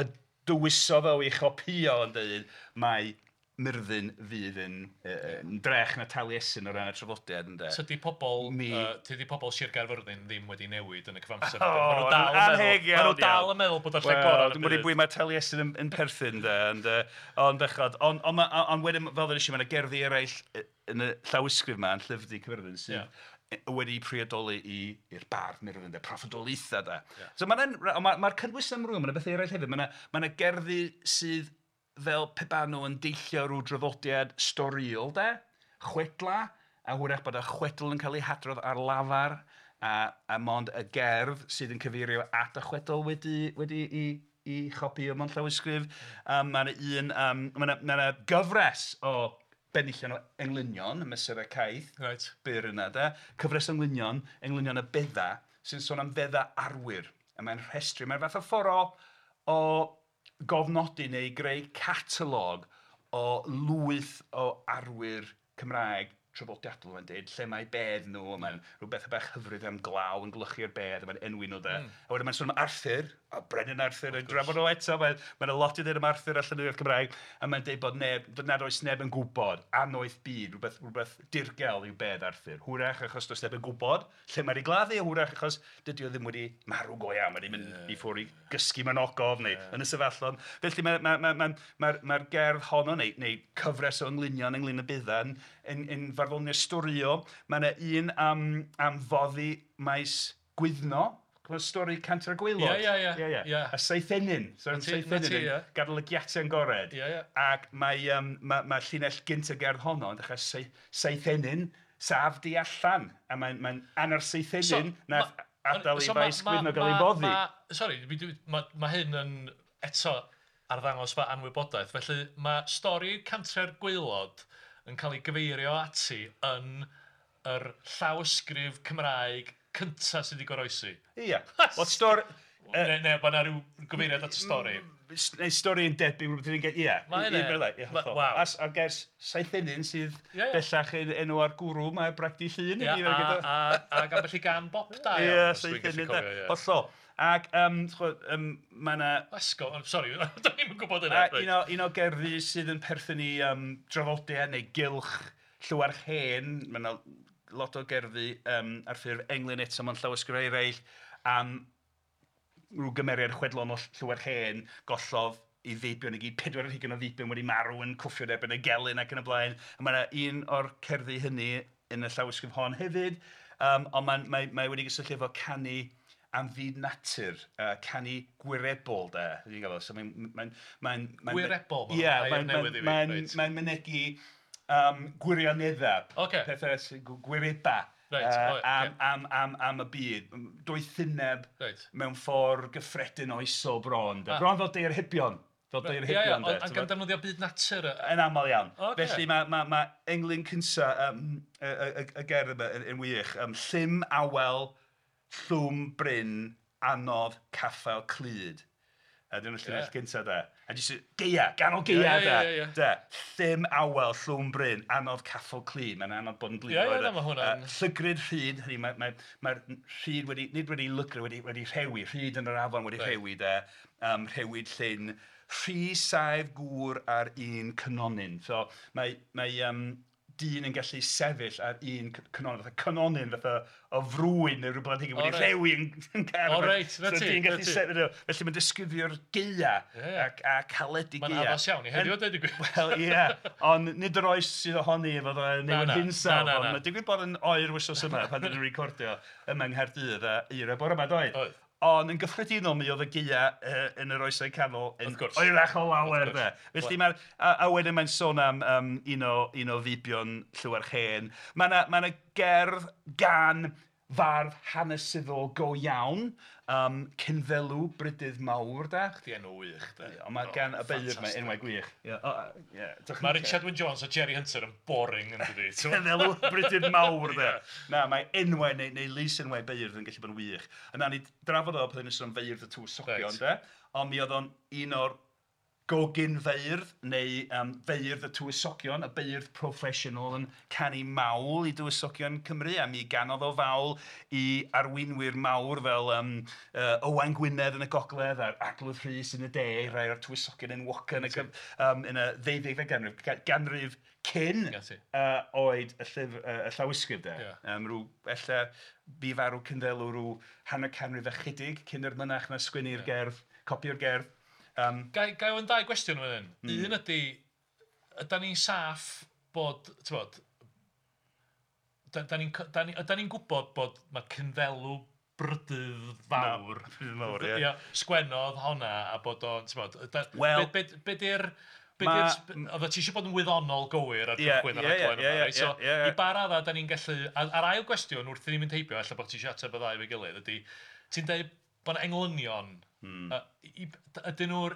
y dywysodd o ei chopïo yn dweud, mae Myrddin fydd yn drech na Taliesin o ran y traddodiad ynde. Tydi pobl, tydi pobl Sir Gaerfyrddin ddim wedi newid yn y cyfamser. O, maen nhw dal yn meddwl, maen nhw dal yn meddwl bod o'r lle gorau yn y byd. Dwi'n gwybod mae Taliesin yn perthyn de, ond bechod. Ond wedyn, fel ddwedes i, mae yna gerddi eraill yn y llawysgrif yma, yn Llyfr Du Caerfyrddin, sydd wedi priodoli i'r bardd Myrddin, de, proffwydoliaethau de. So mae'r ma cynnwys amrywiol, mae yna bethau eraill hefyd. Mae yna gerddi sydd fel pe baen nhw yn deillio rhyw draddodiad storïol de, chwedla, a hwyrach bod y chwedl yn cael ei hadrodd ar lafar, a mond y gerdd sydd yn cyfeirio at y chwedl wedi i chopïo mewn llawysgrif. Mae yna un, mae yna gyfres o benillion o englynion, y mesurau caeth byr yna de, cyfres o englynion, englynion y bedda, sy'n sôn am fedda arwyr, a mae'n rhestru, mae'n fath o ffordd o gofnodi neu greu catalog o lwyth o arwyr Cymraeg traddodiadol, mae'n deud, lle mae bedd nhw, a mae'n rhywbeth bach hyfryd am glaw yn glychu'r bedd, a mae'n enwi nhw de. A wedyn mae'n sôn am Arthur, a Brenin Arthur, yn drafod o eto, mae'n lot i ddweud am Arthur a llenyddiaeth Cymraeg, a mae'n deud bod neb, nad oes neb yn gwybod, annoeth byd, rhywbeth dirgel yw bedd Arthur. Hwyrach achos does neb yn gwybod lle mae wedi gladdu, hwyrach achos dydy o ddim wedi marw go iawn, mae wedi mynd i ffwrdd i gysgu mewn ogof neu yn y sefyllon. Felly mae'r gerdd honno, neu cyfres o englynion ynglyn â Buddan, yn farddoniaeth storiol. Mae yna un am foddi maes Gwyddno. Cofio stori Cantre'r Gwaelod? Ie. A Seithenyn. Seithenyn yn gadael y giatau yn gored. Ac mae llinell gynt y gerdd honno yn dechrau Seithenyn, saf di allan. A mae'n anner Seithenyn nath adael i faes Gwyddno gael ei boddi. Sori, mae hyn yn eto arddangos fy anwybodaeth. Felly mae stori Cantre'r Gwaelod yn cael ei gyfeirio ati yn yr llawysgrif Cymraeg cynta sydd wedi goroesi. Ia. Wel, stori... Neu, mae yna rhyw gyfeiriad at y stori. Neu stori yn debyg, rhywbeth yn gen... Ia. Mae yna. Waw. A'r gair Seithenyn sydd bellach yn enw ar gwrw, mae Bragdy Llŷn. Ia, ac ambell i gan bop da. Ia, Seithenyn. Hollol. Ac mae yna... Esgo, sori, da ni'm yn gwybod hynna. Un o gerddi sydd yn perthyn i draddodiad neu gylch Llywarch Hen, mae yna lot o gerddi ar ffurf englyn eto mewn llawysgrifau eraill am rhyw gymeriad chwedlon o Llywarch Hen, gollodd ei feibion i gyd, 24 o feibion wedi marw yn cwffio yn erbyn y gelyn ac yn y blaen. A mae yna un o'r cerddi hynny yn y llawysgrif hon hefyd, ond mae wedi gysylltu efo canu am fyd natur, canu gwirebol de. So mae'n gwirebol? Ie, mae'n mynegi gwirioneddau, pethau gwireba am y byd, doethineb mewn ffordd gyffredin oesol bron. Bron fel deirhybion. Fel deirhybion. Ie, ac yn defnyddio byd natur. Yn aml iawn. Felly mae englyn cynta y gerdd yma yn wych. Llym awel, llwm bryn, anodd, caffael clyd. A dyna'r llinell gynta de. A jyst geia, ganol geia de. Llym awel, llwm bryn, anodd caffael clyd. Mae'n anodd bod yn glyd. Ie, mae hwnna'n... Llygryd rhyd, hynny mae'r rhyd wedi, nid wedi lygru, wedi rhewi, rhyd yn yr afon wedi rhewi de. Rhewyd llyn, rhy saif gŵr ar un cynonyn. So mae dyn yn gallu sefyll ar un cynonyn, fatha cynonyn, fatha o frwyn neu rhywbeth wedi rhewi yn car. O reit, na ti. So dyn gallu sefyll, felly mae'n disgrifio'r geia a caledu geia. Mae'n addas iawn i heddiw, dweud y gwir. Wel, ie, ond nid yr oes sydd ohoni efo newid hinsawdd, ond mae'n digwydd bod yn oer wythnos yma pan dyn ni'n recordio yma yng Nghaerdydd a eira bore yma, doedd? Oedd. Ond yn gyffredinol mi oedd y geia yn yr oesau canol yn oerach o lawer de. Felly mae'r a wedyn mae'n sôn am un o feibion Llywarch Hen. Mae yna gerdd gan fardd hanesyddol go iawn, Cynddelw Brydydd Mawr de. Chdi enw wych de. Ond mae gan y beirdd mae enwau gwych. Mae Richard Wyn Jones a Jerry Hunter yn boring yn dydi. Cynddelw Brydydd Mawr de. Na, mae enwau neu lys enwau beirdd yn gallu bod yn wych. A nawn ni drafod o pan ni'n sôn am feirdd y tywysogion de. Ond mi oedd o'n un o'r gogyn feirdd neu feirdd y tywysogion, y beirdd proffesiynol yn canu mawl i dywysogion Cymru, a mi ganodd o fawl i arweinwyr mawr fel Owain Gwynedd yn y gogledd a'r Arglwydd Rhys yn y de, rhai o'r tywysogion enwoca yn y ddeuddegfed ganrif, ganrif cyn oed y llawysgrif de. Rhyw, ella bu farw Cynddelw rhyw hanner canrif ychydig cyn yr mynach na sgwennu'r gerdd, copio'r gerdd. Gai ofyn dau gwestiwn fan hyn. Un ydy, ydan ni'n saff bod, ti'n bod, ydan ni'n gwybod bod mae Cynddelw Brydydd Fawr, Fawr, ie. Sgwennodd honna a bod o'n, ti'n bod, be di'r... Oedd ti eisiau bod yn wyddonol gywir ar gychwyn ar rhaglen yma, reit? So, i ba raddau da ni'n gallu... A'r ail gwestiwn wrth i ni mynd heibio, ella bod ti eisiau ateb y ddau efo'i gilydd, ydy, ti'n dweud bod 'na englynion, ydyn nhw'r...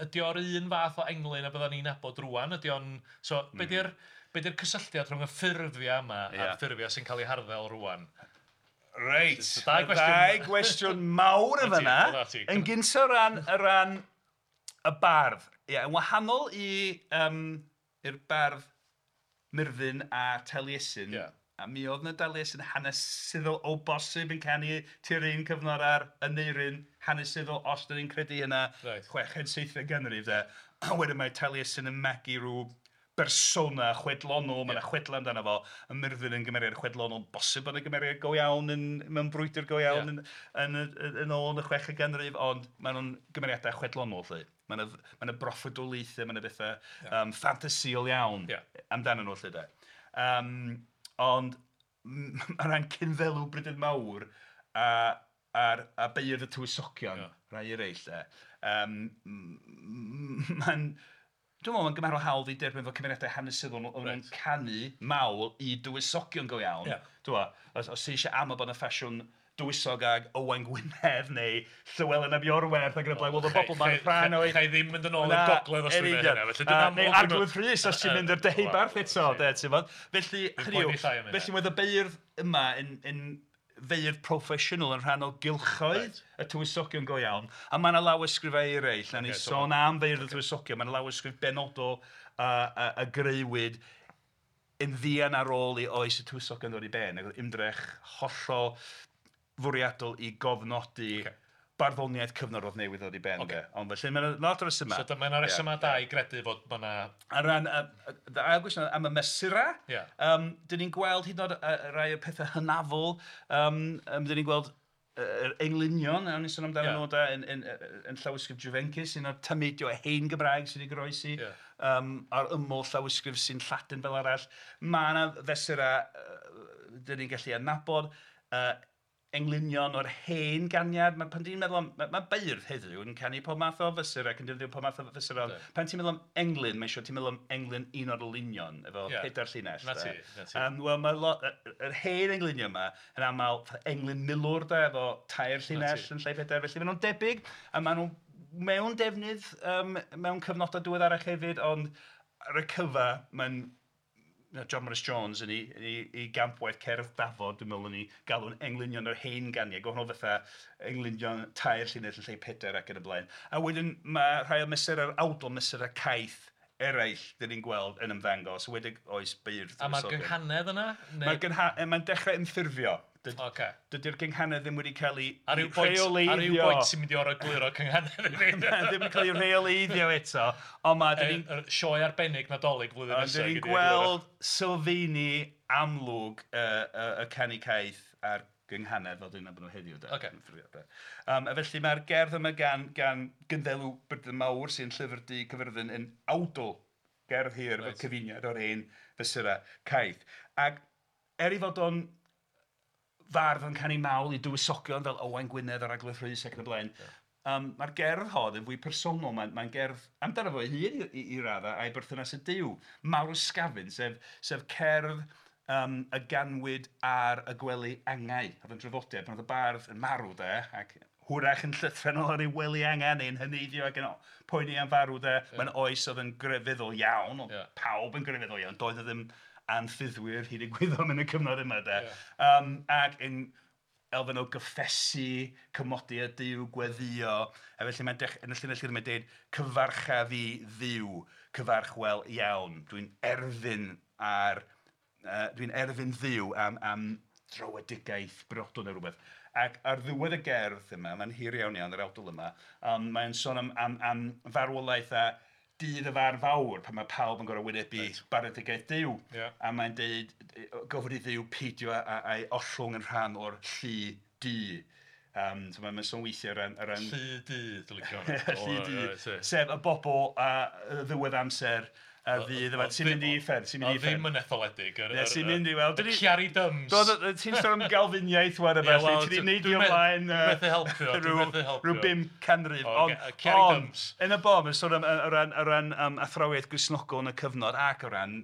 Ydy o'r un fath o englyn a bydda ni'n nabod rŵan? Ydy o'n... So, be di'r cysylltiad rhwng y ffurfiau yma a'r ffurfiau sy'n cael eu harddel rŵan? Reit, dau gwestiwn mawr yn fan'na. Yn gyntaf o ran y bardd. Ie, yn wahanol i i'r bardd Myrddin a Taliesin. A mi oedd 'na Daliesin hanesyddol o bosib yn canu tua'r un cyfnod â'r Aneirin hanesyddol, os dan ni'n credu hynna, chweched, seithfed ganrif de. A wedyn mae Taliesin yn magu rhyw bersona chwedlonol, mae 'na chwedlau amdano fo, a Myrddin yn gymeriad chwedlonol, bosib bod 'na gymeriad go iawn yn... mewn brwydr go iawn yn... yn... yn ôl yn y chweched ganrif, ond maen nhw'n gymeriadau chwedlonol 'lly. Mae 'na... mae 'na broffwydoliaethau, mae 'na bethau yym ffantasïol iawn amdanyn nhw 'lly 'de. Yym ond o ran Cynddelw Brydydd Mawr a... a'r... a Beirdd y Tywysogion, rhai eraill 'de, yym mae'n... Dwi'n meddwl mae'n gymharol hawdd eu derbyn fel cymeriadau hanesyddol oedden nhw'n canu mawl i dywysogion go iawn. Ti'bod, os ti isio amau bod 'na ffasiwn dywysog ag Owain Gwynedd neu Llywelyn ap Iorwerth ac yn y blaen, wel oedd y bobl 'ma'n rhan o'i... Cha i ddim mynd yn ôl i'r gogledd os dwi'n gwneud hynna. Felly dyna Neu Arglwydd Rhys os ti'n mynd i'r Deheubarth eto, de, ti'mod. Felly, hynny yw, felly oedd y beirdd yma yn... yn feirdd proffesiynol yn rhan o gylchoedd y tywysogion go iawn. A mae 'na lawysgrifau eraill, wnawn ni sôn am feirdd y tywysogion, mae 'na lawysgrif benodol a grëwyd yn fuan ar ôl i oes y tywysogion ddod i ben. Ac oedd ymdrech hollol fwriadol i gofnodi barddoniaeth cyfnod oedd newydd ddod i ben de. Ond felly mae 'na lot o resymau. So mae 'na resymau da i gredu fod ma' 'na... O ran dy ail gwestiwn am y mesurau, yym dan ni'n gweld hyd yn oed rhai o'r pethau hynafol, yym dan ni'n gweld yr englynion, o'n i'n sôn amdanyn nhw de, yn yn yn llawysgrif Juvencus, un o'r tameidiau o hen Gymraeg sydd wedi goroesi, yym ar ymyl llawysgrif sy'n Lladin fel arall. Mae 'na fesurau dan ni'n gallu adnabod, englynion o'r hen ganiad. Mae pan ti'n meddwl am... Mae beirdd heddiw yn canu pob math o fesurau ac yn defnyddio pob math o fesurau, ond pan ti'n meddwl am englyn, mae'n siŵr ti'n meddwl am englyn un o'r olwynion efo pedair llinell 'de. 'Na ti, 'na ti. Wel mae lot... yr hen englynion yma yn aml fatha englyn milwr 'de efo tair llinell yn lle pedair, felly maen nhw'n debyg a maen nhw mewn defnydd mewn cyfnodau diweddarach hefyd, ond ar y cyfan mae'n John Morris-Jones yn ei... yn ei gampwaith Cerdd Dafod, dwi'n meddwl yn ei galw'n englynion yr hen ganiad, gwahanol fatha englynion tair llinell yn lle pedair ac yn y blaen. A wedyn mae rhai o mesurau'r awdl, mesurau caeth eraill dan ni'n gweld yn ymddangos, yn enwedig oes beirdd. A mae'r gynghanedd yna? Neu... Mae'r gyngha-... Mae'n dechrau ymffurfio. Ocê. Dydy'r gynghanedd ddim wedi cael ei rheoleiddio. Ar ryw bwynt ti'n mynd i orfod egluro cynghanedd i fi. Ddim wedi cael ei rheoleiddio eto, ond mae... Yr sioe arbennig Nadolig flwyddyn nesaf. Ond dan ni'n gweld sylfaeni amlwg y canu caeth a'r gynghanedd fel dan ni'n nabod nhw heddiw de. Ocê. A felly mae'r gerdd yma gan Gynddelw Brydydd Mawr sy'n Llyfr Du Caerfyrddin yn awdl gerdd hir efo cyfuniad o'r hen fesurau caeth. Ac er ei fod o'n fardd yn canu mawl i dywysogion fel Owain Gwynedd a'r Arglwydd Rhys ac yn y blaen, mae'r gerdd hon yn fwy personol, mae'n gerdd amdano fo ei hun i raddau a'i berthynas â Duw. Marwysgafn, sef cerdd y ganwyd ar y gwely angau. Oedd yn draddodiad pan oedd y bardd yn marw de, ac hwyrach yn llythrennol ar ei wely angau neu'n heneiddio ac yn poeni am farw de. Mae'n oes oedd yn grefyddol iawn, oedd pawb yn grefyddol iawn, doedd 'na ddim anffyddwyr hyd y gwyddom yn y cyfnod yma de. Ac yn elfen o gyffesu, cymodi â Duw, gweddïo, a felly mae'n dech- yn y llinell gynta mae'n dweud "Cyfarcha fi Dduw, cyfarch wel iawn, dwi'n erfyn ar... dwi'n erfyn Dduw am... am dröedigaeth briodol neu rywbeth. Ac ar ddiwedd y gerdd yma, mae'n hir iawn iawn yr awdl yma, ond mae'n sôn am... am... am farwolaeth a dydd y farn fawr pan mae pawb yn gorfod wynebu barnedigaeth Duw. A mae'n deud gofyn i Dduw peidio â'i ollwng yn rhan o'r llu du. So mae'n sôn weithiau o ran... o ran... Llu du, dwi'n licio hwnna. Llu du, sef y bobl ar ddiwedd amser a fydd efo... Sy'n mynd i uffern, sy'n mynd i uffern. Ddim yn etholedig. Sy'n mynd i weld... Y Ciari Dyms. Ti'n sôn am Galfiniaeth wan a ballu, ti 'di neidio ymlaen rhyw 500. Ond yn y bôn mae'n sôn am o ran o ran athrawiaeth Gristnogol yn y cyfnod ac o ran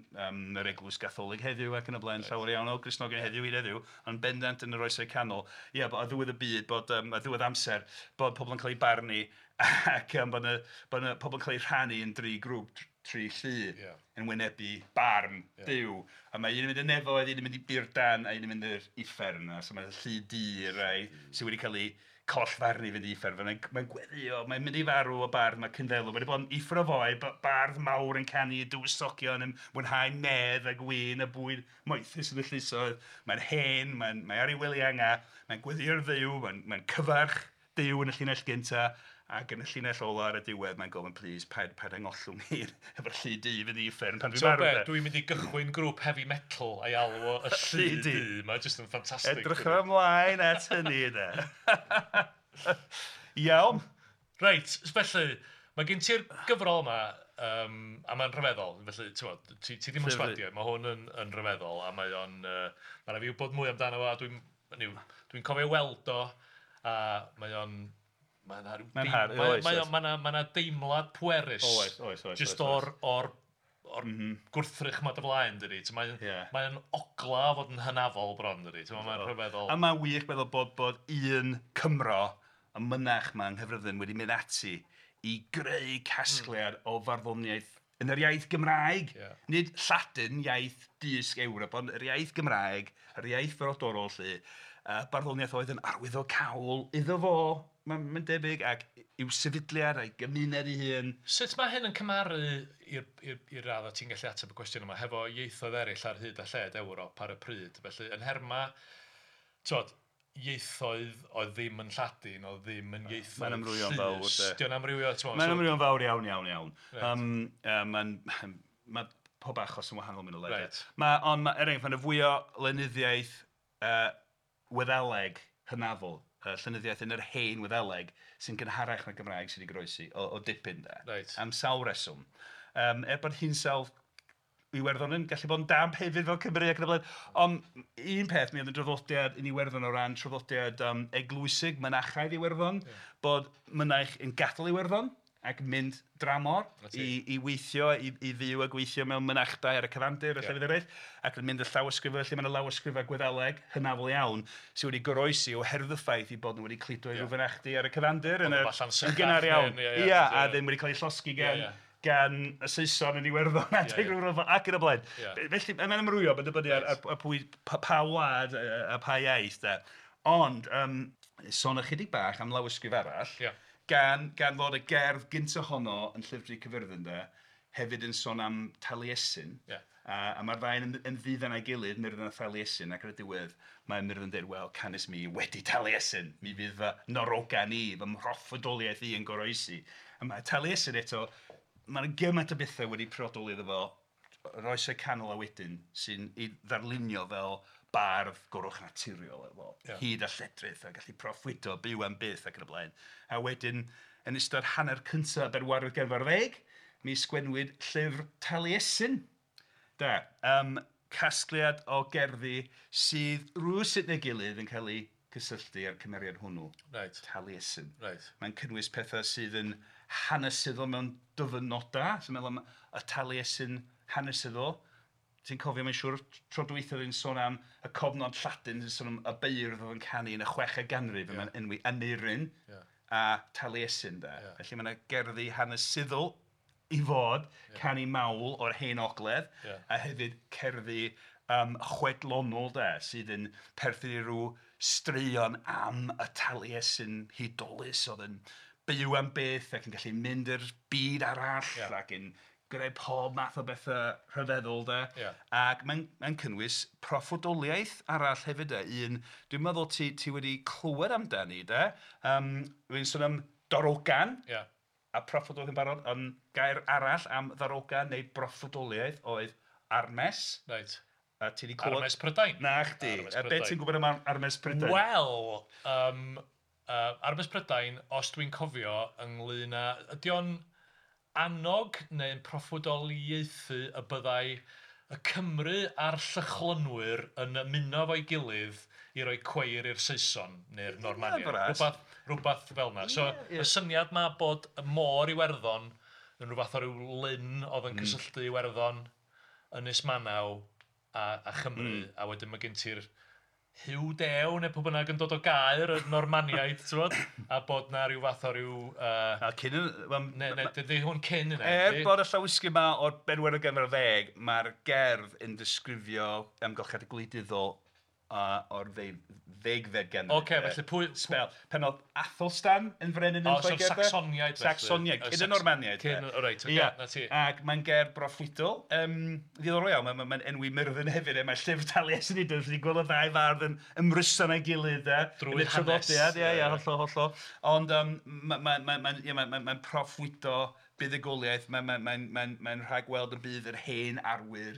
yr Eglwys Gatholig heddiw ac yn y blaen, llawer iawn o Gristnogion heddiw hyd heddiw, ond bendant yn yr Oesau Canol, ia, ar ddiwedd y byd, bod ar ddiwedd amser, bod pobl yn cael eu barnu ac bod 'na bod 'na pobl yn cael eu rhannu yn dri grŵp, tri llu yn wynebu barn Duw. A mae un yn mynd i'r nefoedd, un yn mynd i burdan a un yn mynd i'r uffern. So mae'r llu du, y rhai sydd wedi cael eu... Collfarn i fynd i uffern. Mae'n gweddio, mae'n mynd i farw o bardd, mae Cynddelw. Mae wedi bod yn uffern o foi, bardd mawr yn canu i dywysogion, yn mwynhau medd a gwin a bwyd moethus yn y llysoedd. Mae'n hen, mae ar ei wely angau, mae'n gweddïo ar Dduw, mae'n cyfarch Duw yn y llinell gyntaf, ac yn y llinell ola ar y diwedd mae'n gofyn, "Please, paid angollwng i efo'r llu du i fynd i uffern pan dwi'n marw." Dwi'n mynd i gychwyn grŵp heavy metal a'i alw o y Llu Du. Mae'n just yn ffantastig. Edrych ymlaen at hynny, de. Iawn. Reit, felly, mae gen ti'r gyfrol yma, a mae'n rhyfeddol, felly, ti ddim yn sbadio, mae hwn yn rhyfeddol, a mae o'n, mae rhaid fi wybod mwy amdano fo, a dwi'n cofio weld o, a mae o'n, mae 'na deimlad pwerus. Oes. Jyst o'r gwrthrych 'ma dy flaen, dydi. Mae'n ogla o fod yn hynafol bron, dydi. Mae'n rhyfeddol. A mae'n wych meddwl bod un Cymro, y mynach 'ma yng Nghaerfyrddin, wedi mynd ati i greu casgliad o farddoniaeth yn yr iaith Gymraeg. Nid Lladin, iaith dysg Ewrop, ond yr iaith Gymraeg, yr iaith frodorol 'lly. Barddoniaeth oedd yn arwyddocaol iddo fo, mae'n debyg, ac i'w sefydliad a'i gymuned ei hun. Sut mae hyn yn cymharu i'r raddau ti'n gallu ateb y cwestiwn yma hefo ieithoedd eraill ar hyd a lled Ewrop ar y pryd? Felly, yn nhermau, ti'mod, ieithoedd oedd ddim yn Lladin, oedd ddim yn ieithoedd Mae'n amrywio'n fawr. Dio'n amrywio, ti'mod? Mae'n amrywio'n fawr iawn, iawn, iawn. Mae pob achos yn wahanol mynd o le. Ond, er enghraifft, mae'n fwy o lenyddiaeth Wyddeleg hynafol, llenyddiaeth yn yr hen Wyddeleg sy'n gynharach na'r Gymraeg sydd wedi goroesi o dipyn de. Reit. Am sawl reswm. Er bod hinsawdd Iwerddon yn gallu bod yn damp hefyd fel Cymru ac yn y blaen. Ond un peth, mi oedd yn draddodiad yn Iwerddon o ran traddodiad eglwysig, mynachaidd Iwerddon, bod mynaich yn gadael Iwerddon ac mynd dramor i weithio, i fyw a gweithio mewn mynachdai ar y cyfandir a llefydd eraill, ac yn mynd y llawysgrifau, felly mae yna lawysgrifau Gwyddeleg hynafol iawn sydd wedi goroesi oherwydd y ffaith eu bod nhw wedi cludo i ryw fynachdy ar y cyfandir yn gynnar iawn. Ia, a ddim wedi cael eu llosgi gan y Saeson yn Iwerddon adeg rhyw ryfel ac yn y blaen. Felly mae'n amrywio, mae'n dibynnu ar pwy, pa wlad a pa iaith de. Ond, sôn ychydig bach am lawysgrif arall, gan fod y gerdd gyntaf honno yn Llyfr Du Caerfyrddin de, hefyd yn sôn am Taliesin. A mae'r ddau yn ddiddan â'i gilydd, Myrddin a Thaliesin, ac ar y diwedd mae Myrddin yn dweud, "Wel, canys mi wedi Taliesin, mi fydd fy narogan i, fy mhroffwydoliaeth i yn goroesi." A mae Taliesin eto, mae'n gymaint o bethau wedi priodoli iddo fo, yr oesau canol a wedyn, sy'n ei ddarlunio fel bardd goruwchnaturiol efo hud a lledrith a gallu proffwydo, byw am byth ac yn y blaen. A wedyn, yn ystod hanner cyntaf bedwaredd ganrif ar ddeg, mi sgwennwyd llyfr Taliesin. Da, casgliad o gerddi sydd rywsut neu gilydd yn cael eu cysylltu â'r cymeriad hwnnw, Taliesin. Mae'n cynnwys pethau sydd yn hanesyddol mewn dyfynodau, sy'n meddwl am y Taliesin hanesyddol. Ti'n cofio, mae'n siŵr, tro dwytha oedd hi'n sôn am y cofnod Lladin, sy'n sôn am y beirdd oedd yn canu yn y chweched ganrif, yeah. Mae'n enwi Aneirin a Taliesin. De. Yeah. Felly mae yna gerddi hanesyddol i fod, canu mawl o'r hen ogledd, a hefyd cerddi chwedlonol de, sydd yn perthyn i ryw straeon am y Taliesin hudolus oedd yn byw am byth ac yn gallu mynd i'r byd arall ac yn gwneud pob math o bethau rhyfeddol de. Ac mae'n cynnwys proffwydoliaeth arall hefyd de. Un, dwi'n meddwl ti wedi clywed amdani de. Dwi'n sôn am darogan. A proffwydoliaeth yn barod, ond gair arall am ddarogan neu broffwydoliaeth oedd armes. Reit. A ti 'di clywed... Armes Prydain. Na chdi. A be ti'n gwybod am Armes Prydain? Wel, Armes Prydain, os dwi'n cofio, ynglyn â... Ydy o'n annog neu'n proffwydoliaethu y byddai y Cymry a'r Llychlynwyr yn ymuno efo'i gilydd i roi cweir i'r Saeson neu'r Normaniaid. Rhywbeth fel yna. So, y syniad ma bod y môr Iwerddon yn rhywbeth o ryw lyn oedd yn cysylltu Iwerddon, Ynys Manaw a Chymru, a wedyn mae gen ti'r Huw Dew neu pwy bynnag yn dod o Gaer, y Normaniaid, ti'n gwbod? A bod na rhyw fath o ryw... A cyn... Ne, dydy hwn cyn yna. Er bod y llawysgrif yma o'r bedwaredd ganrif ar ddeg, mae'r gerdd yn disgrifio amgylchiadau gwleidyddol o'r ddegfed ganrif. Ocê, felly pwy... Sbel. Pan oedd Athelstan yn frenin yn O, so'r Lloegr, de? Sacsoniaid felly. Sacsoniaid, cyn y Normaniaid. Cyn, de. o reit, ocê, Ia. 'na ti. Ac mae'n gerdd broffwydol, ddiddorol iawn, mae'n enwi Myrddin hefyd, mae llyfr Taliesin hyd yn oed, gweld y ddau fardd yn ymryson â'i gilydd, de. Drwy Yn y hanes. traddodiad, ia, ia, hollol, hollol. Ond mae'n proffwydo buddugoliaeth, mae'n rhagweld y bydd yr hen arwyr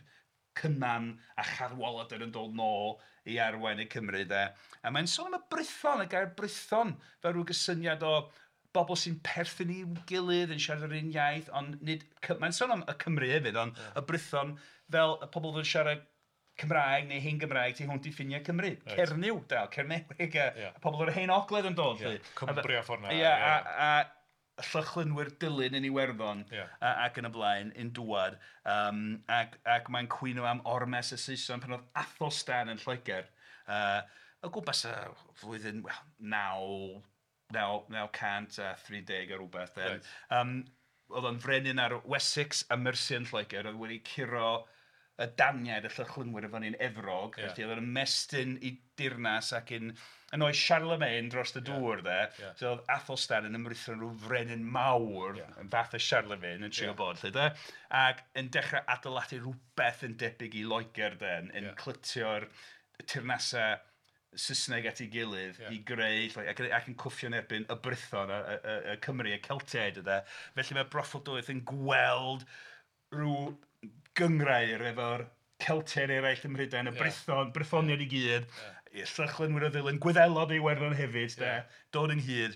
Cynan a Chadwaladr yn dod nôl i arwain y Cymru, de. A mae'n sôn am y Brython, y gair Brython, fel rhyw gysyniad o bobl sy'n perthyn i'w gilydd, yn siarad yr un iaith, ond nid... Mae'n sôn am y Cymru hefyd, ond y Brython fel y pobl oedd yn siarad Cymraeg neu hen Gymraeg tu hwnt i ffiniau Cymru. Reit. Cernyw, dal, Cernyweg, a pobl o'r hen ogledd yn dod. Ie, 'lly. Cumbria ffordd 'na, Ie, a Llychlynwyr Dulyn yn Iwerddon ac yn y blaen, yn dŵad. Ac mae'n cwyno am ormes y Saeson pan oedd Athelstan yn Lloegr. O gwmpas y flwyddyn, wel, 930 a rhywbeth. de. Oedd o'n frenin ar Wessex a Mercia yn Lloegr, oedd wedi curo y Daniaid, y Llychlynwyr i fyny'n Efrog, felly oedd o'n ymestyn i dirnas ac yn oes Charlemagne dros y dŵr, de. So oedd Athelstan yn ymritho yn rhyw frenin mawr, yn fath o Charlemagne, yn trio bod, lle, de. Ac yn dechrau adeiladu rhywbeth yn debyg i Loegr, de, yn clytio'r teyrnasau Saesneg at ei gilydd i greu, ac yn cwffio yn erbyn y Brython, y Cymru, y Celtiaid, de. Felly mae broffwydoliaeth yn gweld rhyw gynghrair efo'r Celtiaid eraill ym Mhrydain, y Brython, Brythoniaid i gyd, y Llychlynwyr o Ddulyn, Gwyddelod i Iwerddon hefyd, de, dod ynghyd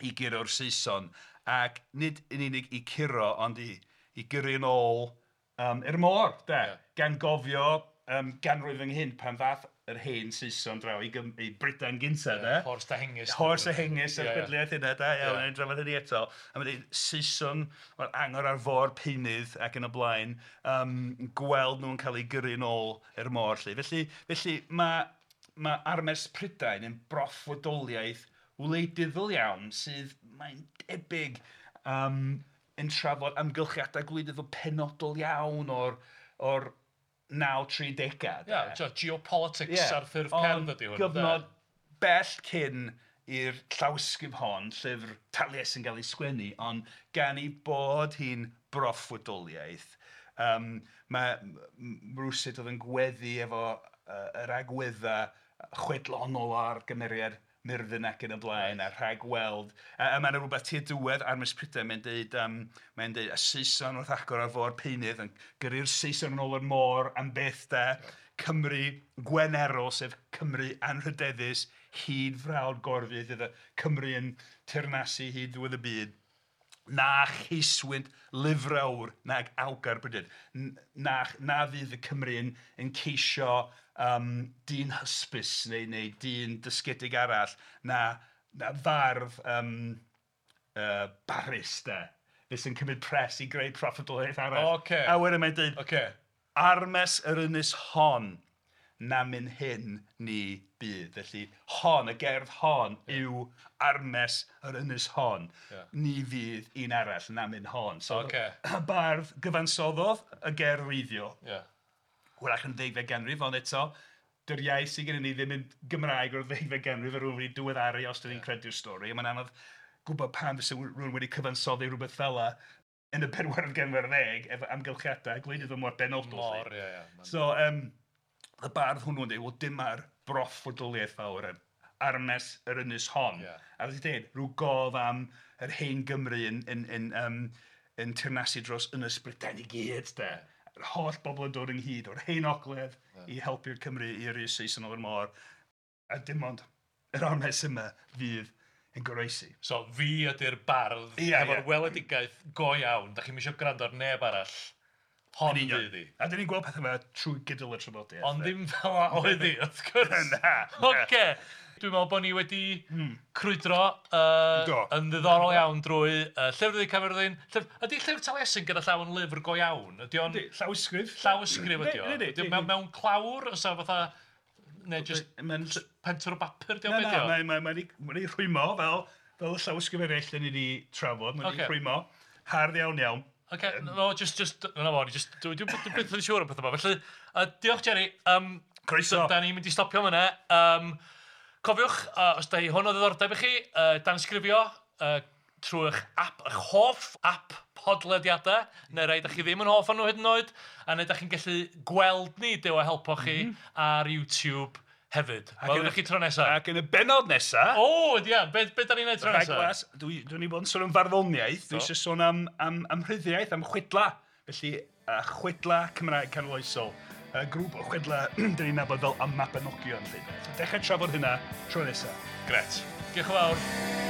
i guro'r Saeson, ac nid yn unig i curo, ond i gyrru yn ôl i'r môr, de, gan gofio ganrif ynghynt pan ddath yr hen Saeson draw i Brydain gynta, de. Horse a Hengist. Horse a Hengist, a'r chwedliaeth hynna, da iawn, yeah. Drafod hynny eto. A mae'n dweud, Saeson, o'r angor ar fôr peunydd ac yn y blaen, gweld nhw'n cael eu gyrru yn ôl i'r môr, 'lly. Felly mae Armes Prydain yn broffwydoliaeth wleidyddol iawn sydd, mae'n debyg, yn trafod amgylchiadau gwleidyddol penodol iawn o'r 930au. Ie, geopolitics ar ffurf cerdd ydy hwn. Gyfnod bell cyn i'r llawysgrif hon, llyfr Taliesin gael ei sgwennu, ond gan ei bod hi'n broffwydoliaeth, mae rywsut oedd yn gweddu efo yr agweddau chwedlonol ar gymeriad Myrddin ac yn y blaen, a rhagweld. A mae yna rhywbeth tua diwedd Armes Prydain, mae'n deud, y Saeson wrth agor ar fôr peunydd, yn gyrru'r Saeson yn ôl i'r môr am byth, de. Cymru Gwenerol, sef Cymru anrhydeddus, hyd frawd Gorfydd, iddo Cymru yn teyrnasu hyd ddiwedd y byd. Na cheiswynt lyfrawr nag awgar Brydydd. Na fydd y Cymru yn ceisio dyn hysbys neu dyn dysgedig arall, na fardd barus, de, fe sy'n cymryd pres i greu proffwydoliaeth arall. Okay. A wedyn mae'n dweud, Armes yr ynys hon, na myn hyn ni bydd. Felly hon, y gerdd hon, yw armes yr ynys hon. Ni fydd un arall na myn hon. So y bardd gyfansoddodd y gerdd wreiddiol. Hwyrach yn ddegfed ganrif, ond eto, dy'r iaith sydd gennym ni ddim yn Gymraeg o'r ddegfed ganrif, a rhywun wedi diweddaru os dan ni'n credu'r stori. A mae'n anodd gwybod pam fysa rhywun wedi cyfansoddi rhywbeth fel 'na yn y bedwaredd ganrif ar ddeg, efo amgylchiadau gwleidyddol mor benodol. Mor, ie, ie. So, y bardd hwnnw'n dweud, wel dyma'r broffwydoliaeth fawr, armes yr ynys hon. A fel ti'n dweud, rhyw gof am yr hen Gymru yn teyrnasu dros Ynys Brydain i gyd, de. Yr holl bobl yn dod ynghyd o'r hen ogledd i helpu'r Cymru i yrru Saeson o'r môr. A dim ond yr armes yma fydd yn goroesi. So fi ydy'r bardd efo'r weledigaeth go iawn. Da chi'm isio gwrando ar neb arall. Hon fydd hi. A dyn ni'n gweld pethau yma trwy gydol y traddodiad. Ond ddim fel 'a oedd hi, wrth gwrs. Na. Ocê. Dwi'n meddwl bod ni wedi crwydro yn ddiddorol iawn drwy Llyfr Du Caerfyrddin. Ydy Llyfr Taliesin gyda llaw yn lyfr go iawn? Ydy o'n... Llawysgrif. Llawysgrif ydy o. Ydy o mewn clawr? Oes 'na fatha... Neu jyst pentwr o bapur 'di o? Na, na, mae'n ei rhwymo fel y llawysgrif eraill dan ni wedi trafod. Mae'n ei rhwymo. Hardd iawn iawn. Ocê, no, just, na fo, just, dwi byth yn siŵr am pethau yma. Felly, diolch Jerry. Croeso. Da ni'n mynd i stopio fyna. Cofiwch, os da hi hwn o ddiddordeb i chi, dansgrifio trwy eich app, eich hoff app podlediadau, neu rai da chi ddim yn hoff o'n nhw hyd yn oed, a neu da chi'n gallu gweld ni, Duw a helpo chi, ar YouTube hefyd. Welwn ni chi tro nesaf. Ac yn y bennod nesaf... O, ia, be da ni'n neud tro nesaf? Rhaglas, dwi'n i bod yn sôn am farddoniaeth, dwi eisiau sôn am rhyddiaeth, am chwedla. Felly, chwedla Cymraeg canoloesol. Y grŵp o chwedla dyn ni'n nabod fel y Mabinogion. Dechrau trafod hynna tro nesaf. Gret. Diolch yn fawr.